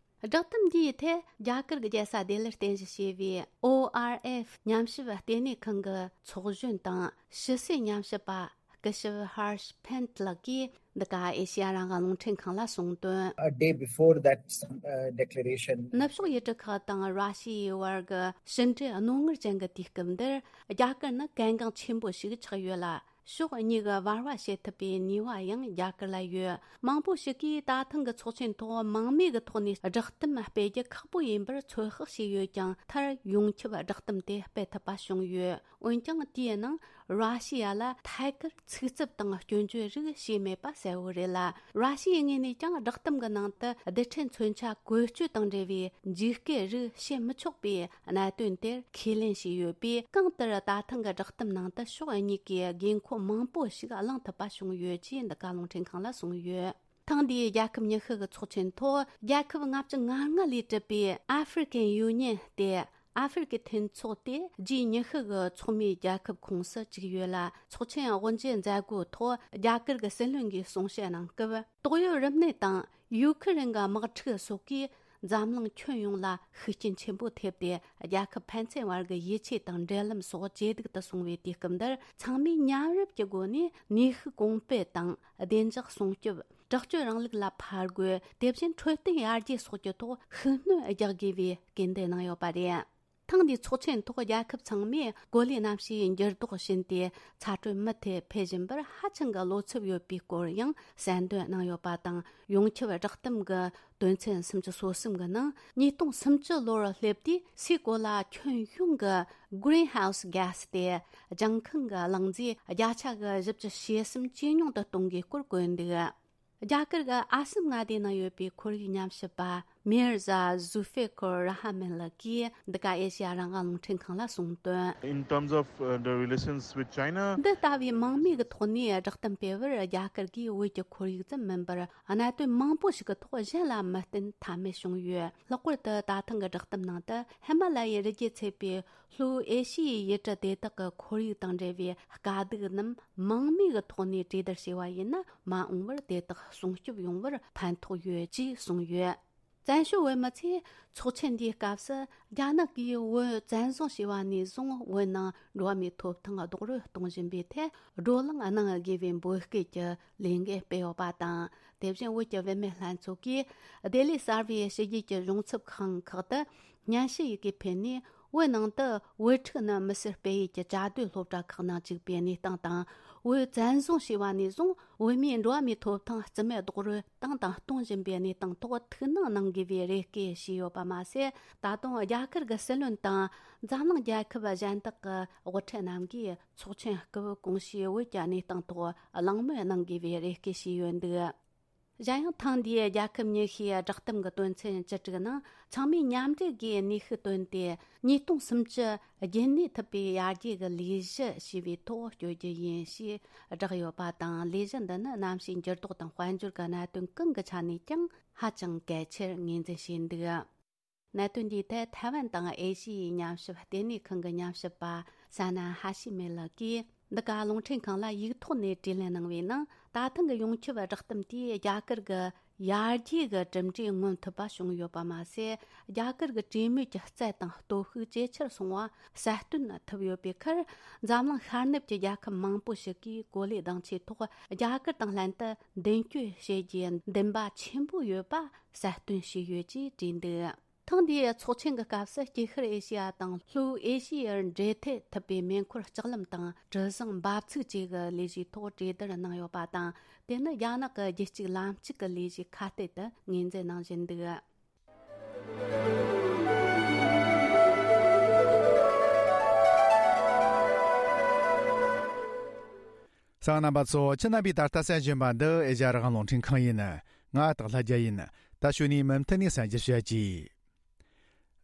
བསྒྲགས་གཏམ་འདིའི་ཐད་རྒྱ་གར་གྱི་རྒྱལ་ས་ལྡི་ལིར་རྟེན་གཞི་བྱས་པའི་ཨོ་ཨར་ཨེཕ་ཉམས་ཞིབ་ལྟེ་གནས་ཁང་གི་ཚོགས་གཞོན་དང་ཕྱི་སྲིད་ཉམས་ཞིབ་པ་སྐུ་ཞབས་ཧར་ཤ་ཕན་ལགས་ཀྱིས་འདི་ག་ཨེ་ཤི་ཡ་རང་དབང་རླུང་འཕྲིན་ཁང་ལ་གསུངས་དོན། A day before that, uh, declaration. ནུབ་ཕྱོགས་ཡུལ་གྲུ་ཁག་དང་ར་ཤི་ཡའི་བར་གྱི་ཕྱི་འབྲེལ་རྣོ་ངར་ཅན་གྱི་དུས་སྐབས་འདིར། རྒྱ་གར་ནི་གལ་འགངས་ཆེན་པོ་ཞིག་ཆགས་ཡོད་ལ། ཕྱོགས་གཉིས་ཀྱི་བར་བ་བྱེད་ཐུབ་པའི་ནུས་པ་ཡང་རྒྱ་གར་ལ་ཡོད། མང་པོ་ཞིག་གིས་ད་ཐེངས་ཀྱི་ཚོགས་ཆེན་ཐོག་མང་མོས་ཀྱི་ཐོག་ནས་བསྒྲགས་གཏམ་སྤེལ་རྒྱུ་ཁག་པོ་ཡིན་པར་ཚོད་དཔག་བྱས་ཡོད་ཀྱང་། མཐར་ཡོངས་ཁྱབ་བསྒྲགས་གཏམ་དེ་སྤེལ་ཐུབ་པ་བྱུང་ཡོད། འོན་ཀྱང་། དེའི་ནང་ར་ཤི་ཡ་ལ་ཐད་ཀར་ཚིག་རྩུབ་དང་སྐྱོན་བརྗོད་རིགས་བྱས་མེད་པ་གསལ་བོ་རེད་ལ། ར་ཤི་ཡའི་ངོས་ནས་ཀྱང་བསྒྲགས་གཏམ་གྱི་ནང་དུ་རྡུལ་ཕྲན་མཚོན་ཆ་བཀོལ་སྤྱོད་དང་འབྲེལ་བའི་འཇིགས་སྐུལ་རིགས་བྱེད་མི་ཆོག་པའི་གནད་དོན་དེར་ཁས་ལེན་བྱས་ཡོད་པས། གང་ལྟར་ད་ཐེངས་ཀྱི་བསྒྲགས་གཏམ་ནང་དུ་ཕྱོགས་གཉིས་ཀས་དགོས་མཁོ་མང་པོ་ཞིག་གླེང་ཐུབ་པ་བྱུང་ཡོད་ཅེས་འདི་ག་རླུང་འཕྲིན་ཁང་ལ་གསུངས་ཡོད། ཐེངས་འདིའི་རྒྱལ་ཁབ་ཉི་ཤུ་གི་ཚོགས་ཆེན་ཐོག་རྒྱལ་ཁབ་ལྔ་བཅུ་ང་ལྔ་ལས་གྲུབ་པའི་ཨ་ཧྥེ་རི་ཀན་ཡུ་ནི་ཡན་སྟེ། ཨ་ཧྥེ་རི་ཀའི་མཐུན་ཚོགས་དེ་ཇི་ཉི་ཤུ་གི་ཚོགས་མིའི་རྒྱལ་ཁབ་ཁོངས་སུ་བཅུག་ཡོད་ལ། ཚོགས་ཆེན་དབུ་འབྱེད་མཛད་སྒོའི་ཐོག་རྒྱ་གར་གྱི་སྲིད་བློན་གྱིས་གསུང་བཤད་གནང་སྐབས། ཏོག་དབྱིབས་རིམས་ནད་དང་ཡུ་ཁུ་རེན་གྱི་དམག་འཁྲུག་སོགས་ཀྱིས་འཛམ་གླིང་ཁྱོན་ཡོངས་ལ་ཤུགས་རྐྱེན་ཆེན་པོ་ཐེབས་ཏེ། རྒྱལ་ཁབ་ཕན་ཚུན་བར་གྱི་ཡིད་ཆེས་དང་འབྲེལ་ལམ་སོགས་ཇེ་སྡུག་ཏུ་སོང་བའི་དུས་སྐབས་འདིར། ཚང་མས་མཉམ་རུབ་ཀྱི་སྒོ་ནས་ནུས་ཤུགས་གོང་སྤེལ་དང་། བདེ་འཇགས་སྲུང་སྐྱོབ། དྲག་སྤྱོད་རིང་ལུགས་ལ་ཕར་རྒོལ། དེ་བཞིན་འཕྲོད་བསྟེན་ཡར་རྒྱས་སོགས་ཀྱི་ཐོག་ཤུགས་སྣོན་རྒྱག་དགོས་པའི་སྐུལ་འདེད་གནང་ཡོད་པ་རེད། ཐེངས་འདིའི་ཚོགས་ཆེན་ཐོག་རྒྱལ་ཁབ་ཚང་མས་གོ་ལའི་གནམ་གཤིས་འགྱུར་ལྡོག་བཞིན་ཏེ་ཚ་དྲོད་མུ་མཐུད་འཕེལ་བཞིན་པར་ཧ་ཅང་གི་བློ་འཚབ་ཡོད་པའི་སྐོར་ཡང་གསལ་འདོན་གནང་ཡོད་པ་དང་། ཡོངས་ཁྱབ་བསྒྲགས་གཏམ་གྱི་དོན་ཚན་སུམ་ཅུ་སོ་གསུམ་གྱི་ནང་། ཉིས་སྟོང་སུམ་ཅུ་ལོར་སླེབས་དུས་སའི་གོ་ལ་ཁྱོན་ཡོངས་ཀྱི་Greenhouse Gas སྟེ་ལྗང་ཁང་གི་རླུང་རྫས་བརྒྱ་ཆ་གི་བཞི་བཅུ་ཞེ་གསུམ་ཇེ་ཉུང་དུ་གཏོང་དགོས་སྐོར་བཀོད་འདུག། རྒྱ་གར་གྱི་ཨ་སམ་མངའ་སྡེའི་ནང་ཡོད་པའི་ཁོར་ཡུག་ཉམས་ཞིབ་པ་མིར་ཟ་ཟུ་ཧྥེ་ཁོར་ར་ཧ་མན་ལགས་ཀྱིས་འདི་ག་ཨེ་ཤེ་ཡ་རང་དབང་རླུང་འཕྲིན་ཁང་ལ་གསུངས་དོན། In terms of, uh, the relations with China, འདི་ལྟ་བུའི་མང་མོས་ཀྱི་ཐོག་ནས་བསྒྲགས་གཏམ་སྤེལ་བར། རྒྱ་གར་གྱིས་བོད་ཀྱི་ཁོར་ཡུག་ཙམ་མིན་པར། གནད་དོན་མང་པོ་ཞིག་གི་ཐོག་གཞན་ལ་མི་བརྟེན་ཐབས་མེད་བྱུང་ཡོད། ལྷག་པར་དུ་ད་ཐེངས་ཀྱི་བསྒྲགས་གཏམ་ནང་དུ། ཧི་མ་ལ་ཡའི་རི་རྒྱུད་ཚད་པའི་ལྷོའི་ཨེ་ཤི་ཡའི་ཡུལ་གྲུ་དེ་དག་གི་ཁོར་ཡུག་དང་འབྲེལ་བའི་དཀའ་སྡུག་རྣམས་མང་མོས་ཀྱི་ཐོག་ནས་གྲོས་བསྡུར་བྱས་པ་ཡིན་ན། མ་འོངས་པར་དེ་དག་སྲུང་སྐྱོབ་ཡོང་བར་ཕན་ཐོགས་ཡོད་ཅེས་གསུངས་ཡོད། བཙན་བྱོལ་བོད་མི་ཚོས་ཚོགས་ཆེན་འདིའི་སྐབས་སུ། རྒྱ་ནག་གིས་བོད་བཙན་བཟུང་བྱས་པ་ནས་བཟུང་། བོད་ནང་འགྲོ་བ་མིའི་ཐོབ་ཐང་རྡོག་རོལ་གཏོང་བཞིན་པའི་ཐད། བགྲོ་གླེང་གནང་དགོས་པའི་འབོད་སྐུལ་གྱི་ལས་འགུལ་སྤེལ་ཡོད་པ་དང་། དེ་བཞིན་བོད་ཀྱི་བུད་མེད་ལྷན་ཚོགས་ཀྱིས་ལྡི་ལི་གསར་པའི་ཕྱི་རྒྱལ་གྱི་གཞུང་ཚབ་ཁང་ཁག་ཏུ་སྙན་ཞུ་ཡི་གེ་ཕུལ་ནས། བོད་ནང་དུ་བོད་ཕྲུག་རྣམས་མི་སེར་སྤེལ་ཡུལ་གྱི་བཅའ་སྡོད་སློབ་གྲྭ་ཁག་ནང་བཅུག་པའི་གནས་སྟངས་དང་། བོད་བཙན་བཟུང་བྱས་པ་ནས་བཟུང་། བོད་མིའི་འགྲོ་བ་མིའི་ཐོབ་ཐང་རྩིས་མེད་རྡོག་རོལ་བཏང་དང་གཏོང་བཞིན་པའི་གནས་སྟངས་ཐོག་ཐུགས་སྣང་གནང་དགོས་པའི་རེ་སྐུལ་ཞུས་ཡོད་པ་མ་ཟད། ད་དུང་རྒྱ་གར་གྱི་སྲིད་བློན་དང་འཛམ་གླིང་རྒྱལ་ཁབ་གཞན་དག་གི་དབུ་ཁྲིད་རྣམས་ཀྱིས་ཚོགས་ཆེན་སྐབས་གོང་ཞུས་བོད་ཀྱི་གནས་སྟངས་ཐོག་གླེང་མོལ་གནང་དགོས་པའི་རེ་སྐུལ་ཞུས་ཡོད་འདུག། གཞན་ཡང་། ཐེངས་འདིའི་རྒྱལ་ཁབ་ཉི་ཤུའི་བསྒྲགས་གཏམ་གྱི་དོན་ཚན་བཅུ་དྲུག་ནང་། ཚང་མས་མཉམ་འབྲེལ་སྒོས་ནུས་ཤུགས་བཏོན་ཏེ། ཉིས་སྟོང་སུམ་ཅུ་རྒྱུན་གནས་ཐུབ་པའི་ཡར་རྒྱས་ཀྱི་ལས་གཞི་ཞེས་པའི་ཐོག་བསྐྱོད་རྒྱུ་ཡིན་ཞེས་བསྒྲགས་ཡོད་པ་དང་། ལས་གཞི་འདི་ནི་གནམ་གཤིས་འགྱུར་ལྡོག་དང་དཔལ་འབྱོར་གྱི་གནད་དོན་གང་གི་ཆ་ནས་ཀྱང་ཧ་ཅང་གལ་ཆེར་ངོས་འཛིན་བྱས་འདུག། གནད་དོན་འདིའི་ཐད་ཐའེ་ཝན་དང་ཨེ་ཤི་ཡའི་ཉམས་ཞིབ་ལྟེ་གནས་ཁང་གི་ཉམས་ཞིབ་པ་ས་ན་ཧ་ཤི་མེ་ལགས་ཀྱིས། འདི་ག་རླུང་འཕྲིན་ཁང་ལ་ཡིག་ཐོག་ནས་དྲིས་ལན་གནང་བའི་ནང་། ད་ཐེངས་ཀྱི་ཡོངས་ཁྱབ་བསྒྲགས་གཏམ་དེས་རྒྱ་གར་གྱི་ཡར་རྒྱས་ཀྱི་གྲུབ་འབྲས་མངོན་ཐུབ་པ་བྱུང་ཡོད་པ་མ་ཟད། རྒྱ་གར་གྱི་གྲོས་མོལ་གྱི་རྩལ་དང་སྟོབས་ཤུགས་ཇེ་ཆེར་སོང་བ་གསལ་སྟོན་ཐུབ་ཡོད་པའི་ཁར། འཛམ་གླིང་ཤར་ནུབ་ཀྱི་རྒྱལ་ཁབ་མང་པོ་ཞིག་གིས་གོ་ལའི་གདེང་ཆའི་ཐོག་རྒྱ་གར་དང་ལྷན་དུ་མདུན་སྐྱོད་བྱེད་རྒྱུའི་འདུན་པ་ཆེན་པོ་ཡོད་པ་གསལ་སྟོན་བྱས་ཡོད་ཅེས་བྲིས་འདུག། ཐེངས་འདིའི་ཚོགས་ཆེན་གྱི་སྐབས་སུ་སྐྱེ་ཤར་ཨེ་ཤེ་ཡ་དང་ལྷོའི་ཨེ་ཤེ་ཡར་འབྲེལ་མཐུད་ཐུབ་པའི་མེ་འཁོར་ལྕགས་ལམ་དང་གྲུ་གཟིངས་འབབ་ཚུགས་བཅས་ཀྱི་ལས་གཞིའི་ཐོག་གྲོས་བསྡུར་གནང་ཡོད་པ་དང་། དེ་ནི་རྒྱ་ནག་གི་རྒྱུད་གཅིག་ལམ་གཅིག་གི་ལས་གཞི་ཁ་གཏད་དུ་ངོས་འཛིན་གནང་བཞིན་འདུག་གསན་མཁན་རྣམ་པ་ཚོ། ཁྱེད་རྣམ་པས་ད་ལྟ་གསན་བཞིན་པ་འདི་ཨེ་ཤ་ཡ་རང་དབང་རླུང་འཕྲིན་ཁང་ཡིན། ང་སྟག་ལྷ་རྒྱལ་ཡིན། ད་གཞུག་ནས་མུ་མཐུད་ནས་གསན་རྒྱུ་བྱེད་ཀྱི།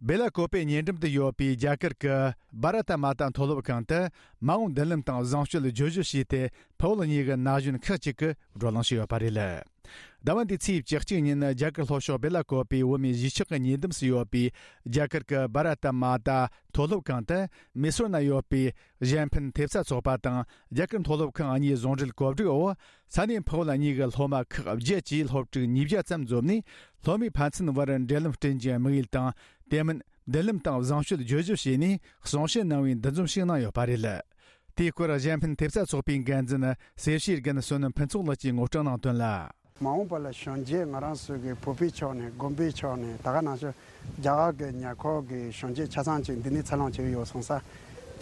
སྦེ་ལ་ཀོ་པེ་ཉེ་འགྲམ་དུ་ཡོད་པའི་རྒྱ་གར་གྱི་བྷ་ར་ཏ་མ་ཏ་མཐོ་སློབ་ཁང་དུ་མ་འོངས་མདུན་ལམ་དང་བཟང་སྤྱོད་བརྗོད་གཞི་ཞེས་ཏེ་ཕུ་བོ་གཉིས་ཀྱི་ན་གཞོན་ཁག་ཅིག་གིས་བགྲོ་གླེང་བྱས་ཡོད་པ་རེད། ཟླ་བ་འདིའི་ཚེས་བཅུ་གཅིག་ཉིན་རྒྱ་གར་ལྷོ་ཕྱོགས་སྦེ་ལ་ཀོ་པེ་བོད་མིའི་གཞིས་ཆགས་ཀྱི་ཉེ་འདབས་སུ་ཡོད་པའི་རྒྱ་གར་གྱི་བྷ་ར་ཏ་མ་ཏ་མཐོ་སློབ་ཁང་དུ་མེ་སོར་ན་ཡོད་པའི་གཞན་ཕན་ཐེབས་རྩ་ཚོགས་པ་དང་རྒྱ་གར་མཐོ་སློབ་ཁང་གཉིས་ཟུང་འབྲེལ་གོ་སྒྲིག་འོག་ས་གནས་ཕུ་བོ་གཉིས་ཀྱི་སློབ་མ་ཁག་བརྒྱད་ཀྱིས་སློབ་ཕྲུག་ཉིས་བརྒྱ་ཙམ་འཛོམས་ནས། སློབ་མའི་ཕན་ཚུན་བར་འབྲེལ་ལམ་བསྐྲུན་རྒྱུའི་དམིགས་ཡུལ་དང་། དེ་མིན་མདུན་ལམ་དང་བཟང་སྤྱོད་བརྗོད་གཞི་བྱས་ནས་གསུང་བཤད་གནང་བའི་འདུ་འཛོམས་ཤིག་གནང་ཡོད་པ་རེད། དེའི་སྐོར་གཞན་ཕན་ཐེབས་རྩ་ཚོགས་པའི་འགན་འཛིན་སེར་བྱེས་རྒན་བསོད་ནམས་ཕུན་ཚོགས་ལགས་ཀྱིས་ངོ་སྤྲོད་གནང་དོན་ལ། མ་འོངས་པ་ལ་གཞོན་སྐྱེས་ང་རང་ཚོ་གི་བོད་པའི་ཕྱོགས་ནས་དགོན་པའི་ཕྱོགས་ནས་ད་ག་ནང་བཞིན་རྒྱ་གར་གྱི་ཉེ་འཁོར་གྱི་གཞོན་སྐྱེས་ཆ་ཚང་ཅིག་འདི་ནས་འཚར་ལོངས་བྱས་ཡོད་སོང་ཙང་།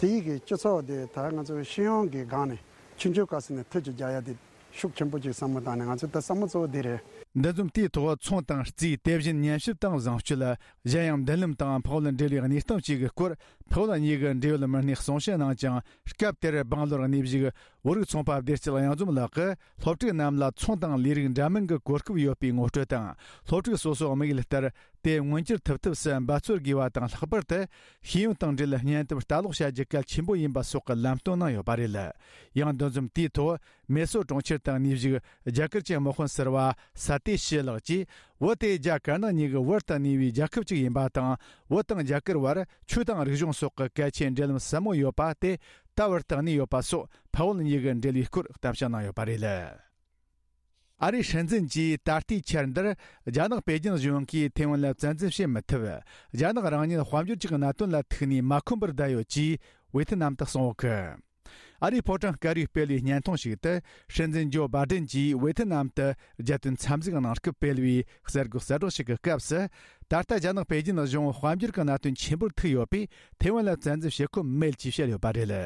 དེའི་གི་སྤྱི་ཚོགས་དེ་ད་ང་ཚོ་སྤྱི་ཡོངས་ཀྱི་སྒང་ནས་ཆུང་ཆུང་སྐབས་སུ་ནས་ཐུགས་ཀྱི་རྒྱ་ཡ་དེ་ཤུགས་ཆེན་པོ་ཅིག་བསམ་བློ་བཏང་ནས་ང་ཚོ་ད་བསམ་བློ་གཙོ་བོ་དེ་རེད། འདུ་འཛོམས་དེའི་ཐོག་ཚོང་དང་རྩིས། དེ་བཞིན་ཉམས་ཞིབ་དང་བཟང་སྤྱོད། གཞན་ཡང་མདུན་ལམ་དང་ཕུ་བོ་འབྲེལ་བའི་གནས་སྟངས་བཅས་ཀྱི་སྐོར་ཕུ་བོ་གཉིས་ཀྱི་འབྲེལ་ཡོད་མི་སྣས་གསུང་བཤད་གནང་ཅིང་། སྐབས་དེར་སྦང་ལོར་གནས་བཞུགས་བོད་རིགས་ཚོང་པ་བདེ་སྐྱིད་གཡང་འཛོམས་ལགས་ཀྱིས་སློབ་ཕྲུག་རྣམས་ལ་ཚོང་དང་ལས་རིགས་འདྲ་མིན་གྱི་གོ་སྐབས་ཡོད་པའི་ངོ་སྤྲོད་དང་། སློབ་ཕྲུག་སོ་སོའི་དམིགས་ཡུལ་ལྟར་དེ་མངོན་འགྱུར་ཐུབ་ཐབས་སུ་འབད་རྩོལ་དགོས་པ་དང་། ལྷག་པར་དུ་ཤེས་ཡོན་དང་འབྲེལ་གཉེན་སྟོབས་ལྟ་ཀློག་བྱ་རྒྱུ་གལ་ཆེན་པོ་ཡིན་པ་སོགས་ཀྱི་ལམ་སྟོན་གནང་ཡོད་པ་རེད། ཡང་འདུ་འཛོམས་དེའི་ཐོག་མེ་སོར་གྲོང་ཁྱེར་དུ་གནས་བཞུགས་རྒྱ་གར་གྱི་དམག་དཔོན་ཟུར་པ་ས་ཏེ་ཤི་ལགས་ཀྱིས། བོད་དེ་རྒྱ་དཀར་ནག་གཉིས་ཀྱི་བར་དུ་གནས་པའི་རྒྱལ་ཁབ་ཅིག་ཡིན་པ་དང་། བོད་དང་རྒྱ་གར་བར་ཆོས་དང་རིག་གཞུང་སོགས་ཀྱི་གལ་ཆེའི་འབྲེལ་ལམ་ཟབ་མོ་ཡོད་པ་དེ་ད་བར་དུ་གནས་ཡོད་པ་སོགས་ཕུ་བོ་གཉིས་ཀྱི་འབྲེལ་བའི་སྐོར་གཏམ་བཤད་གནང་ཡོད་པ་རེད། ཨ་རིའི་སྲིད་འཛིན་གྱིས་ད་ལྟའི་ཆར་འདིར་རྒྱ་ནག་པེ་ཅིན་གཞུང་གིས་ཐེ་ཝན་ལ་བཙན་འཛུལ་བྱེད་མི་ཐུབ། རྒྱ་ནག་རང་ཉིད་དཔལ་འབྱོར་གྱི་གནད་དོན་ལ་ཐུག་ནས་མ་ཁོམ་པར་བསྡད་ཡོད་ཅེས་ཝེ་ཐི་ནམ་དུ་སོང་ཡོད་གི། ཨ་རིའི་ཕོ་བྲང་དཀར་པོས་སྤེལ་བའི་བརྙན་ཐུང་ཞིག་ཏུ། སྲིད་འཛིན་ཇོ་བྷ་ཌེན་གྱིས་ཝེ་ཐི་ནམ་དུ་རྒྱལ་དོན་འཚམས་གཟིགས་གནང་སྐབས་སྤེལ་བའི་གསར་འགོད་གསལ་བསྒྲགས་ཤིག་གི་སྐབས་སུ། ད་ལྟ་རྒྱ་ནག་པེ་ཅིན་གཞུང་དཔལ་འབྱོར་གྱི་གནད་དོན་ཆེན་པོར་ཐུག་ཡོད་པས། ཐེ་ཝན་ལ་བཙན་འཛུལ་བྱེད་ཁོམ་མེད་ཅེས་བཤད་ཡོད་པ་རེད།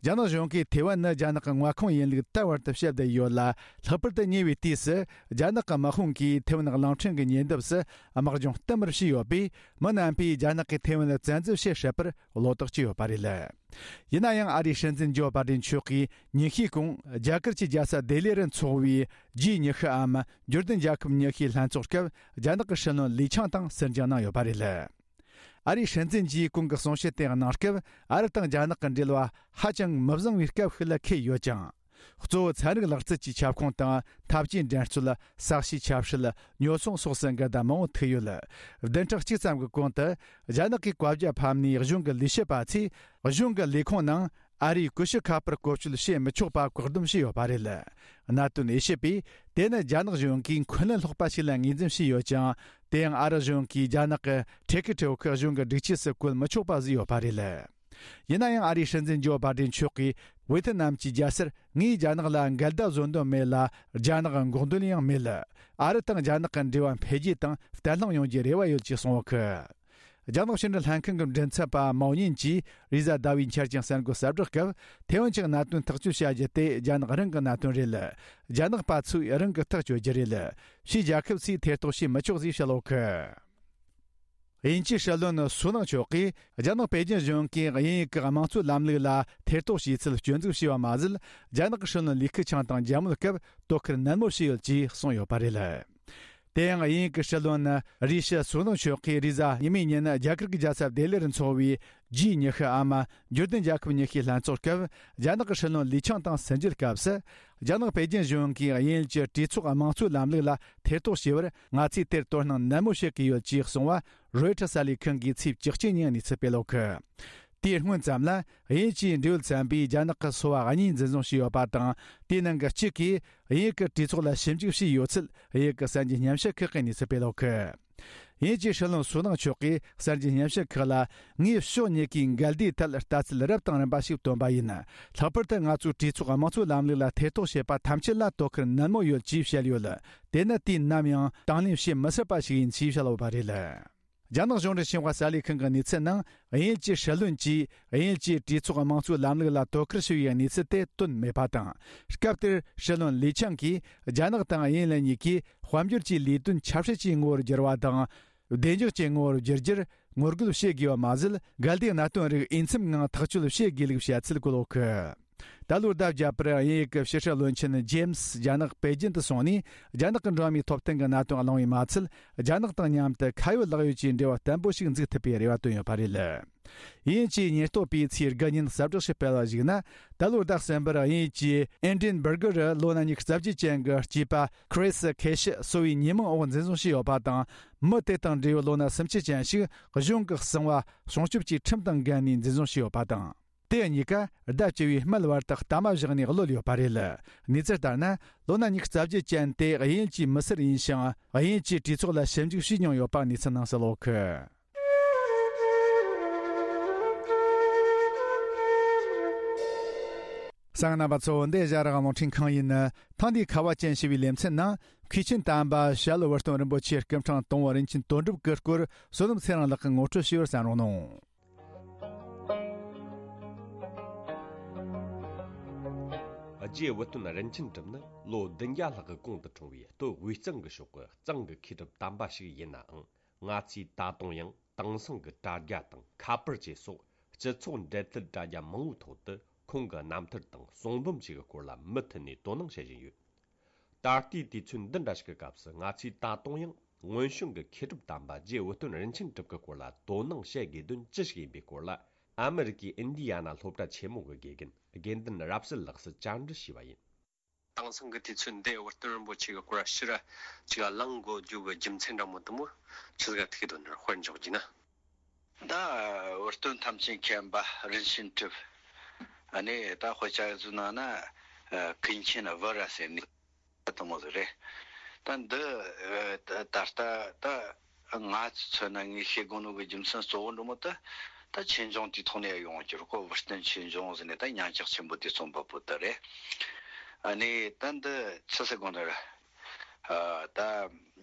རྒྱ་ནག་གཞུང་གིས་ཐེ་ཝན་ནི་རྒྱ་ནག་གི་མངའ་ཁོངས་ཡིན་ལུགས་ད་བར་དུ་བཤད་བསྡད་ཡོད་ལ། ལྷག་པར་དུ་ཉེ་བའི་དུས་སུ་རྒྱ་ནག་གི་དམག་དཔུང་གིས་ཐེ་ཝན་གླིང་ཕྲན་གྱི་ཉེ་འདབས་སུ་དམག་སྦྱོང་བསྟུད་མར་བྱས་ཡོད་པས། མི་རྣམ་པས་རྒྱ་ནག་གིས་ཐེ་ཝན་ལ་བཙན་འཛུལ་བྱེད་སྲིད་པར་བློ་དོགས་བྱས་ཡོད་པ་རེད། ཡིན་ན་ཡང་ཨ་རིའི་སྲིད་འཛིན་ཇོ་བྷ་ཌེན་མཆོག་གིས་ཉིན་ཤས་གོང་རྒྱ་གར་གྱི་རྒྱལ་ས་ལྡི་ལི་རུ་འཚོགས་པའི་ཇི་ཉི་ཤུའམ་འབྱོར་ལྡན་རྒྱལ་ཁབ་ཉི་ཤུའི་ལྷན་ཚོགས་སྐབས་རྒྱ་ནག་གི་སྲིད་བློན་ལི་ཆང་དང་ཟུར་འཇགས་གནང་ཡོད་པ་རེད། ཨ་རིའི་སྲིད་འཛིན་གྱིས་གོང་གི་གསུང་བཤད་དེ་གནང་སྐབས། ཨ་རི་དང་རྒྱ་ནག་གི་འབྲེལ་བ་ཧ་ཅང་མི་བཟང་བའི་སྐབས་ཤིག་ལ་འཁེལ་ཡོད་ཅིང་། གཙོ་བོ་ཚན་རིག་ལག་རྩལ་གྱི་ཁྱབ་ཁོངས་དང་། འཐབ་ཇུས་འགྲན་རྩོད། ས་གཤིས་ཆབ་སྲིད། ཉོ་ཚོང་སོགས་སུ་འགལ་ཟླ་མང་པོ་ཐུག་ཡོད། བདུན་ཕྲག་གཅིག་ཙམ་གྱི་གོང་དུ། རྒྱ་ནག་གིས་བཀའ་རྒྱ་ཕབ་ནས་གཞུང་གི་ལས་བྱེད་པ་ཚོས་གཞུང་གི་ལས་ཁུངས་ནང་ཨ་རིའི་ཀུ་ཤུ་ཁ་པར་བཀོལ་སྤྱོད་བྱེད་མི་ཆོག་པ་བཀག་སྡོམ་བྱས་ཡོད་པ་རེད། གནད་དོན་དབྱེ་ཞིབ་པས། དེ་ནི་རྒྱ་ནག་གཞུང་གིས་འཁོན་ལན་སློག་པ་ཞིག་ལ་ངོས་འཛིན་བྱས་ཡོད་ཅིང་། དེ་ཡང་ཨ་རི་གཞུང་གིས་རྒྱ་ནག་གི་ཁྲལ་གི་ཁྲལ་ཁུ་གཞུང་གི་སྒྲིག་ཆས་སུ་བཀོལ་མི་ཆོག་པ་བཟོས་ཡོད་པ་རེད། ཡིན་ན་ཡང་ཨ་རིའི་སྲིད་འཛིན་ཇོ་བྷ་ཌེན་མཆོག་གིས་ཝེ་ཐི་ནམ་གྱི་རྒྱལ་སར། ངས་རྒྱ་ནག་ལ་འགལ་ཟླ་བཟོ་འདོད་མེད་ལ། རྒྱ་ནག་འགོག་འདོད་ཡང་མེད། ཨ་རི་དང་རྒྱ་ནག་གི་འབྲེལ་བ་འཕེལ་རྒྱས་དང་བརྟན་ལྷིང་ཡོང་རྒྱུའི་རེ་བ་ཡོད་ཅེས་གསུངས་ཡོད་གི། རྒྱ་ནག་ཕྱི་འབྲེལ་ལྷན་ཁང་གི་མགྲིན་ཚབ་པ་མའོ་ཉིན་གྱིས་རེས་གཟའ་ཟླ་བའི་འཆར་ཅན་གསར་འགོད་གསལ་བསྒྲགས་སྐབས། ཐེ་ཝན་གྱི་གནད་དོན་ཐག་གཅོད་བྱ་རྒྱུ་དེ་རྒྱ་ནག་རང་གི་གནད་དོན་རེད། རྒྱ་ནག་པ་ཚོས་རང་གིས་ཐག་གཅོད་རྒྱུ་རེད། ཕྱིའི་རྒྱལ་ཁབ་ཚོས་ཐེ་གཏོགས་བྱེད་མི་ཆོག་ཅེས་བཤད་ཡོད་གི། དབྱིན་ཇིའི་སྲིད་བློན་སུ་ནག་མཆོག་གིས་རྒྱ་ནག་པེ་ཅིན་གཞུང་གིས་དབྱིན་ཡུལ་གྱི་དམངས་གཙོའི་ལམ་ལུགས་ལ་ཐེ་གཏོགས་བྱས་ཚུལ་སྐྱོན་འཛུགས་བྱས་པ་མ་ཟད། རྒྱ་ནག་གི་སྲིད་བློན་ལི་ཁེ་ཆང་དང་མཇལ་མོལ་སྐབས་དོ་ཁུར་ནན་མོ་བྱས་ཡོད་ཅེས་གསུངས་ཡོད་པ་རེད། དེ་ཡང་དབྱིན་ཡུལ་གྱི་སྲིད་བློན་རི་ཤི་སུ་ནག་མཆོག་གིས་རེས་གཟའ་ཉི་མའི་ཉིན་རྒྱ་གར་གྱི་རྒྱལ་ས་ལྡི་ལི་རུ་འཚོགས་པའི་ཇི་ཉི་ཤུའམ་འབྱོར་ལྡན་རྒྱལ་ཁབ་ཉི་ཤུའི་ལྷན་ཚོགས་སྐབས་རྒྱ་ནག་གི་སྲིད་བློན་ལི་ཆང་དང་སིན་རྒྱུའི་སྐབས་སུ། རྒྱ་ནག་པེ་ཅིན་གཞུང་གིས་དབྱིན་ཡུལ་གྱི་གྲོས་ཚོགས་དམངས་གཙོའི་ལམ་ལུགས་ལ་ཐེ་གཏོགས་བྱས་པར་ང་ཚོས་དེར་དོ་སྣང་ནན་མོ་བྱེད་ཀྱི་ཡོད་ཅེས་གསུངས་པ་རོའི་ཊར་གསར་ལས་ཁང་གིས་ཚེས་བཅུ་གཅིག་ཉིན་གནས་ཚུལ་སྤེལ་ཡོད་གི། དེའི་སྔོན་ཙམ་ལ་དབྱིན་ཇིའི་འབྲེལ་ཡོད་ཚན་པས་རྒྱ་ནག་གི་སོ་པ་གཉིས་འཛིན་བཟུང་བྱས་ཡོད་པ་དང་། དེའི་ནང་གི་གཅིག་གིས་དབྱིན་ཡུལ་གྱི་གྲོས་ཚོགས་ལ་ཞིབ་འཇུག་བྱས་ཡོད་ཚུལ་དབྱིན་ཡུལ་གྱི་གསར་འགྱུར་སྙན་ཞུ་ཁག་གིས་གནས་ཚུལ་སྤེལ་ཡོད་གི། དབྱིན་ཇིའི་སྲིད་བློན་སུ་ནག་མཆོག་གིས་གསར་འགྱུར་སྙན་ཞུ་ཁག་ལ། ངས་ཕྱོགས་གཉིས་ཀའི་འགལ་ཟླའི་ཐད་ལྟ་ཚུལ་རབ་དང་རིམ་པ་ཞིག་བཏོན་པ་ཡིན། ལྷག་པར་དུ་ང་ཚོས་གྲོས་ཚོགས་དམངས་གཙོའི་ལམ་ལུགས་ལ་ཐེ་གཏོགས་བྱེད་པ་ཐམས་ཅད་ལ་དོ་ཁུར་ནན་མོ་ཡོད་ཅེས་བཤད་ཡོད། དེ་ནི་དུས་ནམ་ཡང་དང་ལེན་བྱེད་མི་སྲིད་པ་ཞིག་ཡིན་ཅེས་བཤད་ཡོད་པ་རེད། རྒྱ་ནག་གཞུང་འབྲེལ་ཤིན་ཧྭ་གསར་ལས་ཁང་གི་གནས་ཚུལ་ནང་དབྱིན་ཡུལ་གྱི་སྲིད་བློན་གྱིས་དབྱིན་ཡུལ་གྱི་གྲོས་ཚོགས་དམངས་གཙོའི་ལམ་ལུགས་ལ་དོ་ཁུར་ཞུ་བའི་གནས་ཚུལ་དེ་བཏོན་མེད་པ་དང་། སྐབས་དེར་སྲིད་བློན་ལི་ཆང་གིས་རྒྱ་ནག་དང་དབྱིན་ཡུལ་གཉིས་ཀས་དཔལ་འབྱོར་གྱི་ལས་དོན་ཆབ་སྲིད་ཀྱི་ངོ་བོར་བསྒྱུར་བ་དང་། བདེ་འཇགས་ཀྱི་ངོ་བོར་བསྒྱུར་རྒྱུར་ངོ་རྒོལ་བྱེད་དགོས་པ་མ་ཟད། འགལ་ཟླའི་གནད་དོན་རིགས་འོས་འཚམ་ངང་ཐག་གཅོད་བྱེད་དགོས་ལུགས་བཤད་ཚུལ་བཀོད་ཡོད་གི། ད་ལོར་ཟླ་བརྒྱད་པར་དབྱིན་ཡུལ་གྱི་ཕྱི་སྲིད་བློན་ཆེན་ཇེམ་སི་རྒྱ་ནག་པེ་ཅིན་དུ་སོང་ནས། རྒྱ་ནག་གི་འགྲོ་བ་མིའི་ཐོབ་ཐང་གི་གནད་དོན་གླེང་བས་མ་ཚད། རྒྱ་ནག་དང་མཉམ་དུ་ཁ་ཡོད་ལག་ཡོད་ཀྱི་འབྲེལ་བ་བརྟན་པོ་ཞིག་འཛུགས་ཐུབ་པའི་རེ་བ་བཏོན་ཡོད་པ་རེད། དབྱིན་ཇིའི་ཉེན་རྟོག་པས་ཚེས་དགུ་ཉིན་གསལ་བསྒྲགས་ཤིག་སྤེལ་བ་ཞིག་ན། ད་ལོར་ཟླ་གསུམ་པར་དབྱིན་ཡུལ་གྱི་ཨེ་ཌི་ཨེན་སྦུར་གར་ལོ་ན་ཉི་ཤུ་རྩ་བརྒྱད་ཅན་གྱི་སྐྱེས་པ་ཁི་རི་སི་ཁེ་ཤི་གསོ་བའི་ཉེས་མིང་འོག་འཛིན་བཟུང་བྱས་ཡོད་པ་དང་། མི་དེ་དང་འབྲེལ་བའི་ལོ་ན་སུམ་ཅུ་ཅན་ཞིག་གཞུང་གི་གསང་བ་སྲུང་སྐྱོབ་ཀྱི་ཁྲིམས་དང་འགལ་ནས་འཛིན་བཟུང་བྱས་ཡོད་པ་དང་། དེ་གཉིས་ཀ་ཟླ་བཅུ་བའི་སྨད་བར་དུ་གཏའ་མ་བཞག་ནས་གློད་ཡོད་པ་རེད། གནས་ཚུལ་ལྟར་ན། ལོ་ན་ཉི་ཤུ་རྩ་བརྒྱད་ཅན་དེ་དབྱིན་ཡུལ་གྱི་མི་སེར་ཡིན་ཞིང་། དབྱིན་ཡུལ་གྱི་གྲོས་ཚོགས་ལ་ཞིབ་འཇུག་བྱས་མྱོང་ཡོད་པ་གནས་ཚུལ་ནང་གསལ་ཡོད་གི། གསན་མཁན་རྣམ་པ་ཚོ། འདི་ཨེ་ཤ་ཡ་རང་དབང་རླུང་འཕྲིན་ཁང་ཡིན། ཐེངས་འདིའི་ཁ་བ་ཅན་ཞེས་པའི་ལེ་ཚན་ནང་། མཁས་ཆེན་དམ་པ་ཞྭ་ལུ་བུ་སྟོན་རིན་པོ་ཆེའི་སྐུ་ཕྲེང་དང་པོ་རིན་ཆེན་དོན་གྲུབ་ཀྱི་སྐོར་བསོད་ནམས་ཚེ་རིང་ལགས་ཀྱིས་ངོ་སྤྲོད་ཞུས་པར་གསན་རོགས་གནང་། རྗེ་བུ་སྟོན་རིན་ཆེན་གྲུབ་ནི་ལོ་བདུན་བརྒྱ་ལྷག་གི་གོང་དུ་འཁྲུངས་པའི་སྟོད་དབུས་གཙང་གི་ཕྱོགས་ཀྱི་གཙང་གི་མཁས་གྲུབ་དམ་པ་ཞིག་ཡིན་ནའང་། ང་ཚོས་ད་དུང་ཡང་དེང་སང་གི་དྲ་རྒྱ་དང་ཁ་པར་བཅས་སོགས་སྤྱི་ཚོགས་འབྲེལ་མཐུད་དྲ་རྒྱ་མང་བོའི་ཐོག་ཏུ་ཁོང་གི་རྣམ་ཐར་དང་གསུང་འབུམ་བཅས་ཀྱི་སྐོར་ལ་མུ་མཐུད་ནས་དོ་སྣང་བྱེད་བཞིན་ཡོད། ད་ལྟའི་དུས་ཚོད་འདི་འདྲ་ཞིག་གི་སྐབས་སུ། ང་ཚོས་ད་དུང་ཡང་སྔོན་བྱོན་གྱི་མཁས་གྲུབ་དམ་པ་རྗེ་བུ་སྟོན་རིན་ཆེན་གྲུབ་ཀྱི་སྐོར་ལ་དོ་སྣང་བྱེད་དགོས་དོན་ཅི་ཞིག་ཡིན་པའི་སྐོར་ལ། ཨ་མི་རི་ཀའི་ཨིན་ཌི་ཡ་ན་སློབ་གྲྭ་ཆེན་མོ་གི་དགེ་རྒན་དགེ་འདུན་རབ་གསལ་ལགས་སུ་བཅར་འདྲི་ཞུས་པ་ཡིན། དེང་སང་གི་དུས་ཚོད་འདི་བུ་སྟོན་རིན་པོ་ཆེ་གི་སྐོར་ཕྱིར་ཅིག་གླེང་དགོས་རྒྱུ་གི་རྒྱུ་མཚན་འདྲ་མོ་དེ་མོ་ཆི་ཟིག་ག་ཐུག་གི་འདུག་ན་དཔེར་འཇོག་རྒྱུ་ན། ད་བུ་སྟོན་ཐམས་ཅད་མཁྱེན་པ་རིན་ཆེན་གྲུབ། ཨ་ནི་ད་དཔེ་ཆ་བཟོ་ན་ན་ཀུན་མཁྱེན་བུ་ར་ཟེར་ནི་དེ་མོ་ཟིག་རེད། ད་འདི་ད་ལྟ་ད་ང་ཚོ་མཚོན་ན་ངས་ཤེས་དགོས་ནོ་གི་རྒྱུ་མཚན་གཙོ་བོ་འདྲ་མོ་ད། ད་ཆོས་འབྱུང་དེའི་ཐོག་ནས་ཡོང་གི་རེད་ཁོ། བུ་སྟོན་ཆོས་འབྱུང་ཟེར་ནས་ད་ཉམས་ཆག་ཆེན་པོ་དེ་རྩོམ་པ་པོ་ད་རེད། ཨ་ནི་ད་འདི་ཆི་ཟེར་དགོས་ན་ར། ད་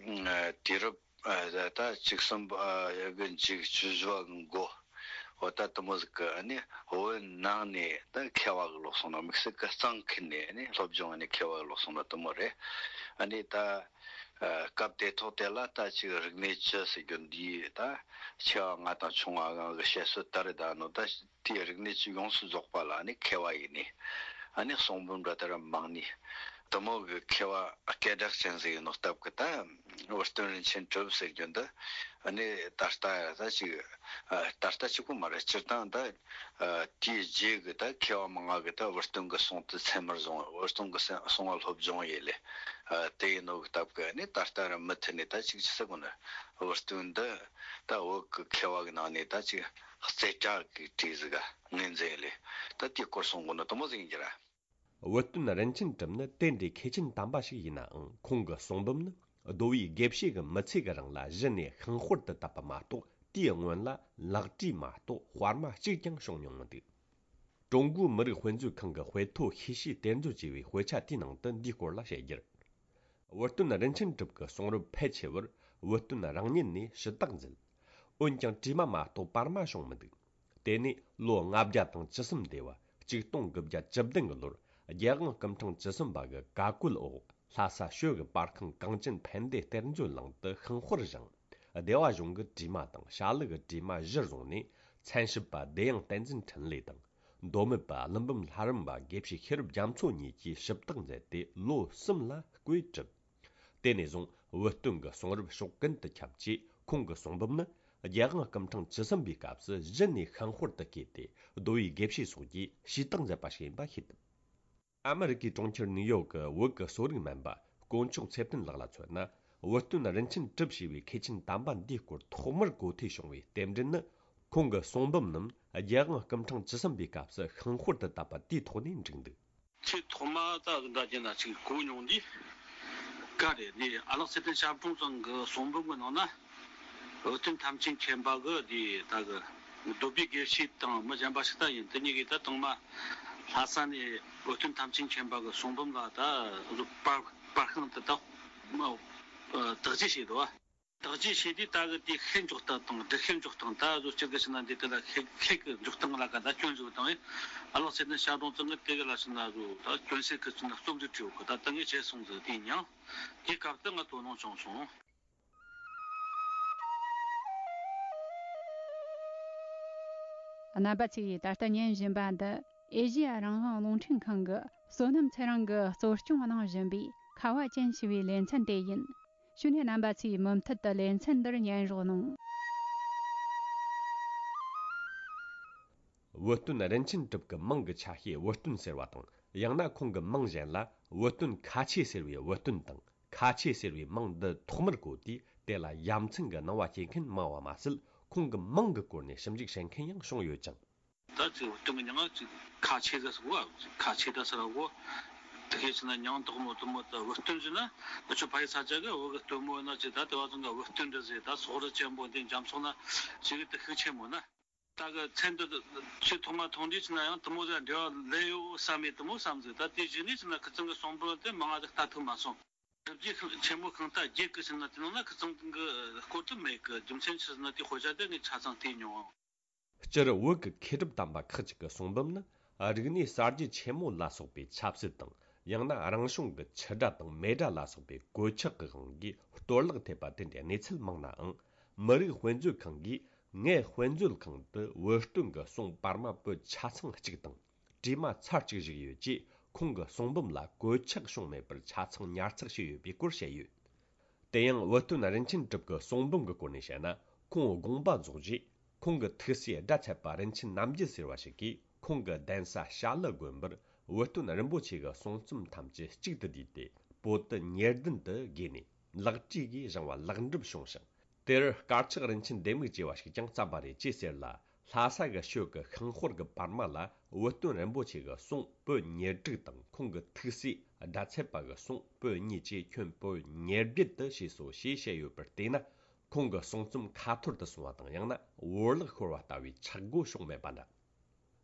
དུས་རབས། ད་བཅུ་གསུམ་པ་གི་མཇུག་བཅུ་བཞི་པ་གི་འགོ། འོ་ད་དེ་མོ་ཟིག་གི་ཨ་ནི་བོད་ནང་ནས་ད་མཁས་པ་གི་ལོག་སོང་ནོ། དམིགས་བསལ་གི་གཙང་ཁུལ་ནས་ཨ་ནི་སློབ་སྦྱོང་ཨ་ནི་མཁས་པ་གི་ལོག་སོང་ནོ་དེ་མོ་རེད། ཨ་ནི་ད་སྐབས་དེ་ཐོག་དེ་ལ་ད་ཅིག་རིག་གནས་བཅུ་ཟེར་རྒྱུ་འདི་ད་ཆེ་བ་ལྔ་དང་ཆུང་བ་ལྔ་གི་བཤད་སྲོལ་ད་རེད། ད་ནོ་ད། དེའི་རིག་གནས་ཀྱི་ཡོངས་སུ་རྫོགས་པ་ལ་ཨ་ནི་མཁས་པ་ཡིན་ནི། ཨ་ནི་གསུང་འབུམ་འདྲ་ལྟར་མང་ནི། དེ་མོ་གི་མཁས་པ་སྐད་གྲགས་ཅན་ཟིག་ཡིན་ནོ་སྟབས་ཀྱིས་ད་བུ་སྟོན་རིན་ཆེན་གྲུབ་ཟེར་རྒྱུ་འདི། ཨ་ནི་ད་ལྟ་ད་ཅིག་ད་ལྟ་གཅིག་པོ་མ་རེད། སྤྱིར་བཏང་ད་དེའི་རྗེས་ཀྱི་ད་མཁས་པ་མང་ང་གི་ད་བུ་སྟོན་གྱི་གསུང་དེ་ཚད་མར་བཟུང་། བུ་སྟོན་གྱི་གསུང་བ་སློབ་སྦྱོང་ཡེ་ལེ། དེ་ཡིན་ནོ་གི་སྟབས་ཀྱིས་ཨ་ནི་ད་ལྟ་ར་མུ་མཐུད་ནས་ད་ཅིག་ཅི་ཟེར་དགོས་ན་བུ་སྟོན་འདི་ད་བོད་ཀྱི་མཁས་པ་གི་ནང་ནས་ད་ཅིག་རྩེ་གྲས་ཀྱི་གྲས་ཟིག་ག་ངོས་འཛིན་ལས། ད་དེའི་སྐོར་གསུང་དགོས་ནོ་དེ་མོ་ཟིག་ཡིན་རྒྱུ་ར། བུ་སྟོན་རིན་ཆེན་གྲུབ་ནི་དེ་འདྲའི་མཁས་ཆེན་དམ་པ་ཞིག་ཡིན་ནའང་། ཁོང་གི་གསུང་འབུམ་ནི་གདོལ་པའི་དགེ་བཤེས་ཀྱི་མི་ཚེ་གི་རིང་ལ་གཞི་ནས་ཤིང་དཔར་དུ་བཏབ་པ་མ་གཏོགས། དེའི་སྔོན་ལ་ལག་བྲིས་མ་གཏོགས་དཔར་མ་གཅིག་ཀྱང་བྱུང་མྱོང་མི་འདུག། ཀྲུང་གོའི་མི་རིགས་དཔེ་མཛོད་ཁང་གི་དཔེ་ཐོ་ཤེས་བྱའི་གཏེར་མཛོད་ཅེས་པའི་དཔེ་ཆ་དེའི་ནང་དུ་འདིའི་སྐོར་ལ་བཤད་རྒྱུར། བུ་སྟོན་རིན་ཆེན་གྲུབ་ཀྱི་གསུང་རབ་ཕལ་ཆེ་བར་བུ་སྟོན་རང་ཉིད་ནས་ཞུ་དག་མཛད། འོན་ཀྱང་བྲིས་མ་མ་གཏོགས་པར་མ་བྱུང་མི་འདུག། དེ་ནས་ལོ་ལྔ་བརྒྱ་དང་བཅུ་གསུམ་སྡེ་བ་གཅིག་སྟོང་དགུ་བརྒྱ་བཅུ་བདུན་གྱི་ལོར་རྒྱལ་དབང་སྐུ་ཕྲེང་བཅུ་གསུམ་པ་གི་བཀའ་བཀོད་འོག་ལྷ་ས་ཞོལ་གྱི་པར་ཁང་གངས་ཅན་ཕན་བདེ་གཏེར་མཛོད་ནང་དུ་ཤིང་དཔར་བཞེངས། སྡེ་བ་གཞུང་གི་བྲིས་མ་དང་ཞྭ་ལུ་གི་བྲིས་མ་གཞིར་བཟུང་ནས། མཚན་ཞབས་པ་བདེ་དབྱངས་བསྟན་འཛིན་འཕྲིན་ལས་དང་། མདོ་སྨད་པ་ཀླུ་འབུམ་ལྷ་རམས་པ་དགེ་བཤེས་ཤེས་རབ་རྒྱ་མཚོ་གཉིས་ཀྱིས་ཞིབ་བརྟག་མཛད་དེ་ལོ་གསུམ་ལ་བརྐོས་བསྒྲུབས། དེ་ནས་བཟུང་བུ་སྟོན་གྱི་གསུང་རབ་ཕྱོགས་ཀུན་ཏུ་ཁྱབ་རྗེས། ཁོང་གི་གསུང་འབུམ་ནི་རྒྱལ་དབང་སྐུ་ཕྲེང་བཅུ་གསུམ་པའི་སྐབས་སུ་གཞི་ནས་ཤིང་དཔར་དུ་བརྐོས་ཏེ། གདོལ་པའི་དགེ་བཤེས་སོགས་ཀྱིས་ཞུས་དག་མཛད་པ་ཞིག་ཡིན་པ་ཤེས་ཐུབ། ཨ་མི་རི་ཀའི་གྲོང་ཁྱེར་ནིའུ་ཡོག་གི་བོད་ཀྱི་གསོ་རིག་སྨན་པ་དཀོན་མཆོག་ཚེ་བརྟན་ལགས་ལ་མཚོན་ན། བུ་སྟོན་རིན་ཆེན་གྲུབ་ཞེས་པའི་མཁས་ཆེན་དམ་པ་འདིའི་སྐོར་ཐོག་མར་གོ་ཐོས་བྱུང་བའི་རྟེན་འབྲེལ་ནི། ཁོང་གི་གསུང་འབུམ་རྣམས་རྒྱལ་དབང་སྐུ་ཕྲེང་བཅུ་གསུམ་པའི་སྐབས་སུ་ཤིང་དཔར་དུ་བཏབ་པ་དེའི་ཐོག་ནས་འགྲིག་འདུག། ཆེས་ཐོག་མ་ད་གཟོད་འདྲ་བྱས་ན་ཅིག་གོ་མྱོང་དུས། ག་རེ་འདི་ཨ་ལགས་ཚེ་བརྟན་ཞབས་དྲུང་ཚང་གི་གསུང་འབུམ་གྱི་ནང་ན། བུ་སྟོན་ཐམས་ཅད་མཁྱེན་པ་གི་དེ་ད་གི་གདོལ་པའི་དགེ་བཤེས་དང་མི་གཞན་པ་ཞིག་ད་ཡིན། དེ་གཉིས་ཀས་ད་དང་མ་ལྷ་ས་ནས་བུ་སྟོན་ཐམས་ཅད་མཁྱེན་པ་གི་གསུང་འབུམ་ལ་ད་གཟོད་པར་པར་ཤིང་དེ་ད་མ་དག་བྱེད་བྱས་འདུག་བ། བརྟག་དཔྱད་བྱས་དུས་ད་གི་དེ་ཤེས་འཇོག་སྟངས་དང་སྒྲུབ་ཤེས་འཇོག་སྟངས། ད་གཟོད་སྤྱིར་གི་ཕྱིན་ན་འདི་དེ་ལ་ཤེས་ཤེས་ཀྱི་འཇོག་སྟངས་ལ་ག་ད་སྐྱོན་བཟོ་དང་ཨེ། ཨ་ལགས་ཚེ་བརྟན་ཤར་གདོང་ཚང་གི་དེ་གི་ལ་ཕྱིན་ན་གཟོད་ད་སྐྱོན་སེལ་གི་ཕྱིན་ན་རྩོམ་འབྲི་བྲིས་ཡོད་གི། ད་ད་ངས་བྱས་སོང་ཟིག་དེ་མྱང་། དེ་སྐབས་དུ་ང་དོ་སྣང་བྱུང་སོང་། རྣམ་པ་ཚོས་ད་ལྟ་ཉན་བཞིན་པ་འདི་ཨེ་ཤེ་ཡ་རང་དབང་རླུང་འཕྲིན་ཁང་གི་བསོད་ནམས་ཚེ་རིང་གིས་གཙོ་སྐྱོང་གནང་བཞིན་པའི་ཁ་བ་ཅན་ཞེས་པའི་ལེ་ཚན་དེ་ཡིན། ཞུ་ནས་རྣམ་པ་ཚོས་མུ་མཐུད་དུ་ལེ་ཚན་འདིར་ཉན་རོགས་གནང་། བུ་སྟོན་རིན་ཆེན་གྲུབ་ཀྱི་མིང་གི་ཆ་ཤས་བུ་སྟོན་ཟེར་བ་དང་། ཡང་ན་ཁོང་གི་མིང་གཞན་ལ་བུ་སྟོན་ཁ་ཆེ་ཟེར་བའི་བུ་སྟོན་དང་། ཁ་ཆེ་ཟེར་བའི་མིང་འདི་ཐོག་མར་གོ་དུས་དེ་ལ་ཡ་མཚན་གྱི་སྣང་བ་སྐྱེ་མཁན་མང་བ་མ་ཟད། ཁོང་གི་མིང་གི་སྐོར་ནས་ཞིབ་འཇུག་བྱེད་མཁན་ཡང་བྱུང་ཡོད་ཅིང་། ད་ཅིག་བུ་སྟོན་གྱི་མྱིང་ང་ཅིག་ཁ་ཆེ་ཟེར་སོ། ཁ་ཆེ་ད་ཟེར་བ་གོ། དེ་གས་ཕྱིན་ན་མྱིང་དག་མོ་དུ་མོ་ད་བུ་སྟོན་ཟེར་ན་ད་ཆོས་ཕ་ཡི་ས་ཆ་གི་བུ་གི་སྟོན་མོ་ཡིན་ན་ཅིག་ད་དེ་བ་ཚང་གི་བུ་སྟོན་འདྲ་ཟེར། ད་སོག་རི་ཆེན་པོ་འདི་འཇམ་སོག་ན་ཅིག་གི་དེ་ཤུགས་ཆེན་མོ་ན། ད་གི་མཚན་འདི་ཆེས་ཐོག་མ་མཐོང་དུས་ཕྱིན་ན་ཡང་དུ་མོ་ཟེར་འབྲེལ་བ་ལས་ཡོད་བསམ་མེད་དུ་མོ་བསམ་ཟིག། ད་དེ་གཞི་ནས་ཕྱིན་ན་ཁི་ཚང་གི་གསུང་འབུམ་དེ་མང་ང་ཟིག་ལྟ་ཐུབ་མ་སོང་། སྒྲུབ་བརྒྱུད་ཆེན་མོ་ཤིང་རྟ་བརྒྱད་ཀྱི་ཕྱིན་ན་དེ་ནང་ན་ཁི་ཚང་གི་སྐོར་དུ་མེད་གི། རྒྱུ་མཚན་ཆི་ཟེར་ན་དེ་དཔེ་ཆ་དེ་ངས་ཆ་ཚང་བལྟས་མྱོང་། སྤྱིར་བོད་ཀྱི་མཁས་གྲུབ་དམ་པ་ཁག་ཅིག་གི་གསུང་འབུམ་ནི་རིག་གནས་གསར་བརྗེ་ཆེན་མོ་ལ་སོགས་པའི་ཆབ་སྲིད་དང་། ཡང་ན་རང་བྱུང་གི་ཆུ་སྒྲ་དང་མེ་སྒྲ་ལ་སོགས་པའི་གོད་ཆག་གི་དབང་གིས་གཏོར་བརླག་ཐེབས་པ་དེ་འདྲའི་གནས་ཚུལ་མང་ནའང་། མི་རིགས་དཔེ་མཛོད་ཁང་གིས་ངའི་དཔེ་མཛོད་ཁང་དུ་བུ་སྟོན་གྱི་གསུང་པར་མ་པོད་ཆ་ཚང་གཅིག་དང་། བྲིས་མ་ཚར་གཅིག་བཞུགས་ཡོད་ཅེས་ཁོང་གི་གསུང་འབུམ་ལ་གོད་ཆག་བྱུང་མེད་པར་ཆ་ཚང་ཉར་ཚགས་བྱས་ཡོད་པའི་སྐོར་བཤད་ཡོད། དེ་ཡང་བུ་སྟོན་རིན་ཆེན་གྲུབ་ཀྱི་གསུང་འབུམ་གྱི་སྐོར་ནས་བཤད་ན། ཁོང་དགོངས་པ་རྫོགས་རྗེས་ཁོང་གི་ཐུགས་སྲས་སྒྲ་ཚད་པ་རིན་ཆེན་རྣམ་རྒྱལ་ཟེར་བ་ཞིག་གིས་ཁོང་གི་གདན་ས་བྱ་ལུ་དགོན་པར་བུ་སྟོན་རིན་པོ་ཆེ་གི་གསུང་རྩོམ་ཐམས་ཅད་གཅིག་ཏུ་བསྡུས་ཏེ་པོ་ཏི་ཉེར་བདུན་དུ་བགོས་ནས་ལེགས་བྲིས་ཀྱིས་བཞེངས་པ་ལེགས་འགྲུབ་བྱུང་ཞིང་། དེར་དཀར་ཆག་རིན་ཆེན་ལྡེ་མིག་ཅེས་པ་ཞིག་ཀྱང་བརྩམས་པ་རེད་ཅེས་ཟེར་ལ། ལྷ་ས་གི་ཤོད་ཀྱི་ཤིང་དཔོན་གྱི་པར་མ་ལ་བུ་སྟོན་རིན་པོ་ཆེ་གི་གསུང་པོད་ཉེར་དྲུག་དང་། ཁོང་གི་ཐུགས་སྲས་སྒྲ་ཚད་པ་གི་གསུང་པོད་གཉིས་བཅས་ཁྱོན་པོད་ཉེར་བརྒྱད་དུ་བྱས་སོ་ཞེས་བཤད་ཡོད་པར་བལྟས་ན། ཁོང་གི་གསུང་རྩོམ་ཁ་འཐོར་དུ་སོང་བ་དང་། ཡང་ན་བོར་བརླག་ཤོར་བ་ལྟ་བུའི་ཆག་སྒོ་བྱུང་མེད་པ་འདྲ།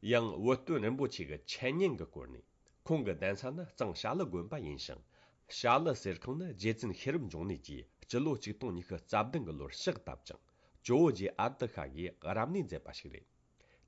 ཡང་བུ་སྟོན་རིན་པོ་ཆེ་གི་འཆད་ཉན་གྱི་སྐོར་ནས། ཁོང་གི་གདན་ས་ནི་གཙང་བྱ་ལུ་དགོན་པ་ཡིན་ཞིང་། བྱ་ལུ་གསེར་ཁང་ནི་རྗེ་བཙུན་ཤེས་རབ་འབྱུང་གནས་ཀྱིས་སྤྱི་ལོ་ཆིག་སྟོང་ཉི་ཤུ་རྩ་བདུན་གྱི་ལོར་ཕྱག་བཏབ་ཅིང་། ཇོ་བོ་རྗེ་ཨ་ཏི་ཤ་གིས་རབ་གནས་མཛད་པ་ཞིག་རེད།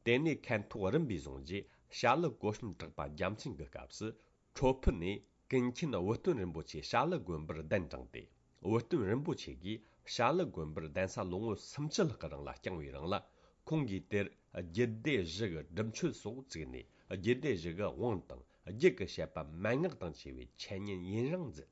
དེ་ནས་ཁ་ཐོག་རིམ་པས་བཟུང་རྗེས་བྱ་ལུ་གོ་གསུམ་གྲགས་པ་རྒྱལ་མཚན་གྱི་སྐབས་སུ། ཁྲོ་ཕུ་ནས་ཀུན་མཁྱེན་བུ་སྟོན་རིན་པོ་ཆེ་བྱ་ལུ་དགོན་པར་གདན་དྲངས་ཏེ། བུ་སྟོན་རིན་པོ་ཆེ་གིས་བྱ་ལུ་དགོན་པར་གདན་ས་ལོ་ངོ་སུམ་ཅུ་ལྷག་གི་རིང་ལ་བསྐྱངས་པའི་རིང་ལ། ཁོང་གིས་དེར་རྒྱུད་སྡེ་བཞི་གི་སྒྲུབ་མཆོད་སོགས་བཙུགས་ནས། རྒྱུད་སྡེ་བཞི་གི་དབང་དང་། རྒྱུད་ཀྱི་བཤད་པ་མན་ངག་དང་བཅས་པའི་འཆད་ཉན་ཡུན་རིང་མཛད།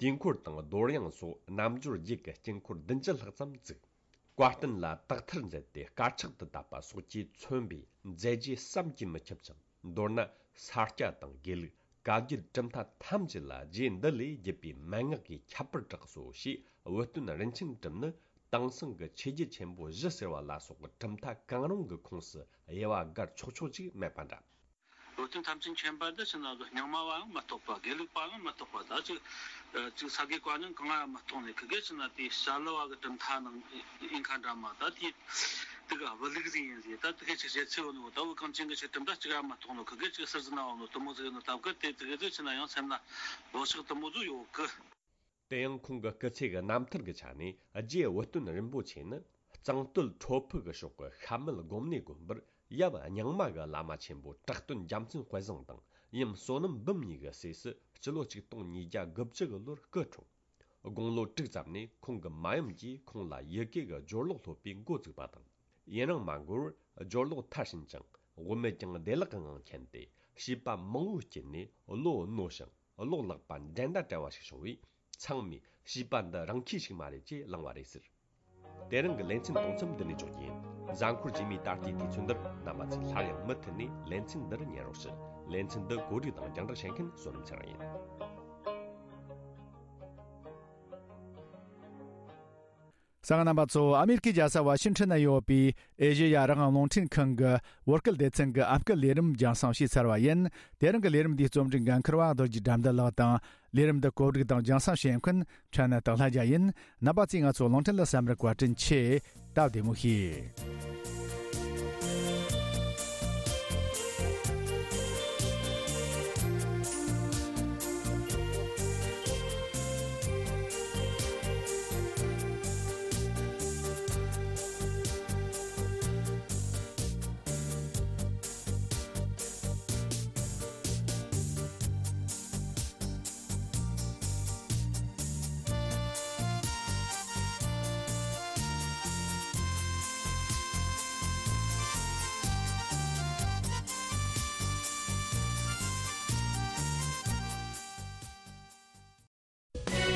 དུས་འཁོར་དང་རྡོར་དབྱངས་སོགས་རྣལ་འབྱོར་རྒྱུད་ཀྱི་དཀྱིལ་འཁོར་བདུན་ཅུ་ལྷག་ཙམ་བཙུགས། བཀའ་བསྟན་ལ་དག་ཐེར་མཛད་དེ། དཀར་ཆག་ཏུ་བཏབ་པ་སོགས་ཀྱིས་མཚོན་པའི་མཛད་རྗེས་བསམ་གྱིས་མི་ཁྱབ་ཅིང་། མདོར་ན་ས་སྐྱ་དང་དགེ་ལུགས། བཀའ་བརྒྱུད་གྲུབ་མཐའ་ཐམས་ཅད་ལ་རྗེ་འདི་ལས་བརྒྱུད་པའི་མན་ངག་གིས་ཁྱད་པར་གྲགས་སོ་ཞེས། བུ་སྟོན་རིན་ཆེན་གྲུབ་ནི་དེང་སང་གི་ཆོས་བརྒྱུད་ཆེན་པོ་བཞི་ཟེར་བ་ལ་སོགས་གྲུབ་མཐའ་གང་རུང་གི་ཁོངས་སུ་དབྱེ་བ་དགར་ཆོག་ཆོག་ཅིག་མེད་པ་འདྲ། བུ་སྟོན་ཐམས་ཅད་མཁྱེན་པ་འདི་ཕྱིན་ན་རྙིང་མ་བའང་མ་གཏོགས་པ། དགེ་ལུགས་པའང་མ་གཏོགས་པ། ད་ཅིག་ཅིག་ས་དགེ་བཀའ་རྙིང་གང་ཡང་མ་གཏོགས་ནས། ཁི་དགེ་ཕྱིན་ན་དེ་བྱ་ལུ་བ་གི་གྲུབ་མཐའ་ནང་ཨིན་ཁ་འདྲ་མ། ད་དེ་དེ་ག་བུ་ལུགས་ཟིག་ཡིན་ཟིག། ད་དེ་ག་ཅིག་བྱེད་ཚེ་བོ་ནོ། ད་བུ་གངས་ཅན་གི་ཆོས་གྲུབ་མཐའ་གཅིག་ཡང་མ་གཏོགས་ནོ། ཁི་དགེ་ཅིག་ཟུར་ཟིག་ན་བ་ནོ་དུ་མོ་ཟིག་ཡིན་ནོ། ད་བུ་ག་དེ་དེ་ག་ཟིག་ཕྱིན་ན་ཡང་སེམས་ན་བག་ཆགས་དུ་མོ་ཟིག་ཡོད་གི། དེ་ཡང་ཁོང་གི་སྐུ་ཚེ་གི་རྣམ་ཐར་གྱི་ཆ་ནས། རྗེ་བུ་སྟོན་རིན་པོ་ཆེ་ནི་གཙང་སྟོད་ཁྲོ་ཕུ་གི་ཕྱོགས་ཀྱི་ཤ་མེད་སྒོམ་གནས་དགོན་པར་ཡབ་རྙིང་མ་གི་བླ་མ་ཆེན་པོ་གྲགས་སྟོན་རྒྱལ་མཚན་དཔལ་བཟང་དང་ཡུམ་བསོད་ནམས་འབུམ་གཉིས་ཀྱི་སྲས་སུ་སྤྱི་ལོ་ཆིག་སྟོང་ཉིས་བརྒྱ་དགུ་བཅུ་གི་ལོར་སྐུ་འཁྲུངས། དགུང་ལོ་དྲུག་ཙམ་ནས་ཁོང་གི་མ་ཡུམ་གྱིས་ཁོང་ལ་ཡི་གེ་གི་སྦྱོར་ཀློག་སློབ་པའི་འགོ་བཙུགས་པ་དང་། ཡུན་རིང་མ་འགོར་བར་སྦྱོར་ཀློག་མཐར་ཕྱིན་ཅིང་། དབུ་མེད་ཀྱང་བདེ་བླག་གི་ངང་མཁྱེན་ཏེ། བྱིས་པ་མང་བོའི་དཀྱིལ་ནས་བློ་རྣོ་ཞིང་བློ་ལེགས་པ་འགྲན་ཟླ་བྲལ་བ་ཞིག་བྱུང་བས། ཚང་མས་བྱིས་པ་འདི་རང་ཁྱི་ཞིག་མ་རེད་ཅེས་གླེང་བ་རེད་ཟེར། དེ་རིང་གི་ལེ་ཚན་གཏོང་མཚམས་འདི་ནས་འཇོག་རྒྱུ་ཡིན། གཟའ་འཁོར་རྗེས་མའི་ད་ལྟའི་དུས་ཚོད་འདིར་རྣམ་པ་ཚོས་སླར་ཡང་མུ་མཐུད་ནས་ལེ་ཚན་འདིར་ཉན་རོགས་ཞུ། ལེ་ཚན་འདི་གོ་སྒྲིག་དང་རྒྱང་བསྒྲགས་བྱེད་མཁན་བསོད་ནམས་ཚེ་རིང་ཡིན། གསན་མཁན་རྣམ་པ་ཚོ། ཨ་མེ་རི་ཁའི་རྒྱལ་ས་ཝ་ཤིང་ཊོན་ན་ཡོད་པའི་ཨེ་ཤེ་ཡ་རང་དབང་རླུང་འཕྲིན་ཁང་གི་བོད་སྐད་སྡེ་ཚན་གྱི་ཨམ་སྐད་ལས་རིམ་རྒྱང་སྲིང་བྱས་ཚར་བ་ཡིན། དེ་རིང་གི་ལས་རིམ་འདིའི་རྩོམ་སྒྲིག་འགན་འཁུར་བ་རྡོ་རྗེ་དགྲ་འདུལ་ལགས་དང་། ལས་རིམ་འདི་གོ་སྒྲིག་དང་རྒྱང་སྲིང་བྱེད་མཁན་ཕྲན་ན་སྟག་ལྷ་རྒྱལ་ཡིན། རྣམ་པ་ཚོས་ང་ཚོ་རླུང་འཕྲིན་ལ་གསན་པར་བཀའ་དྲིན་ཆེ། སྟབས་བདེ་མོ་བྱོས།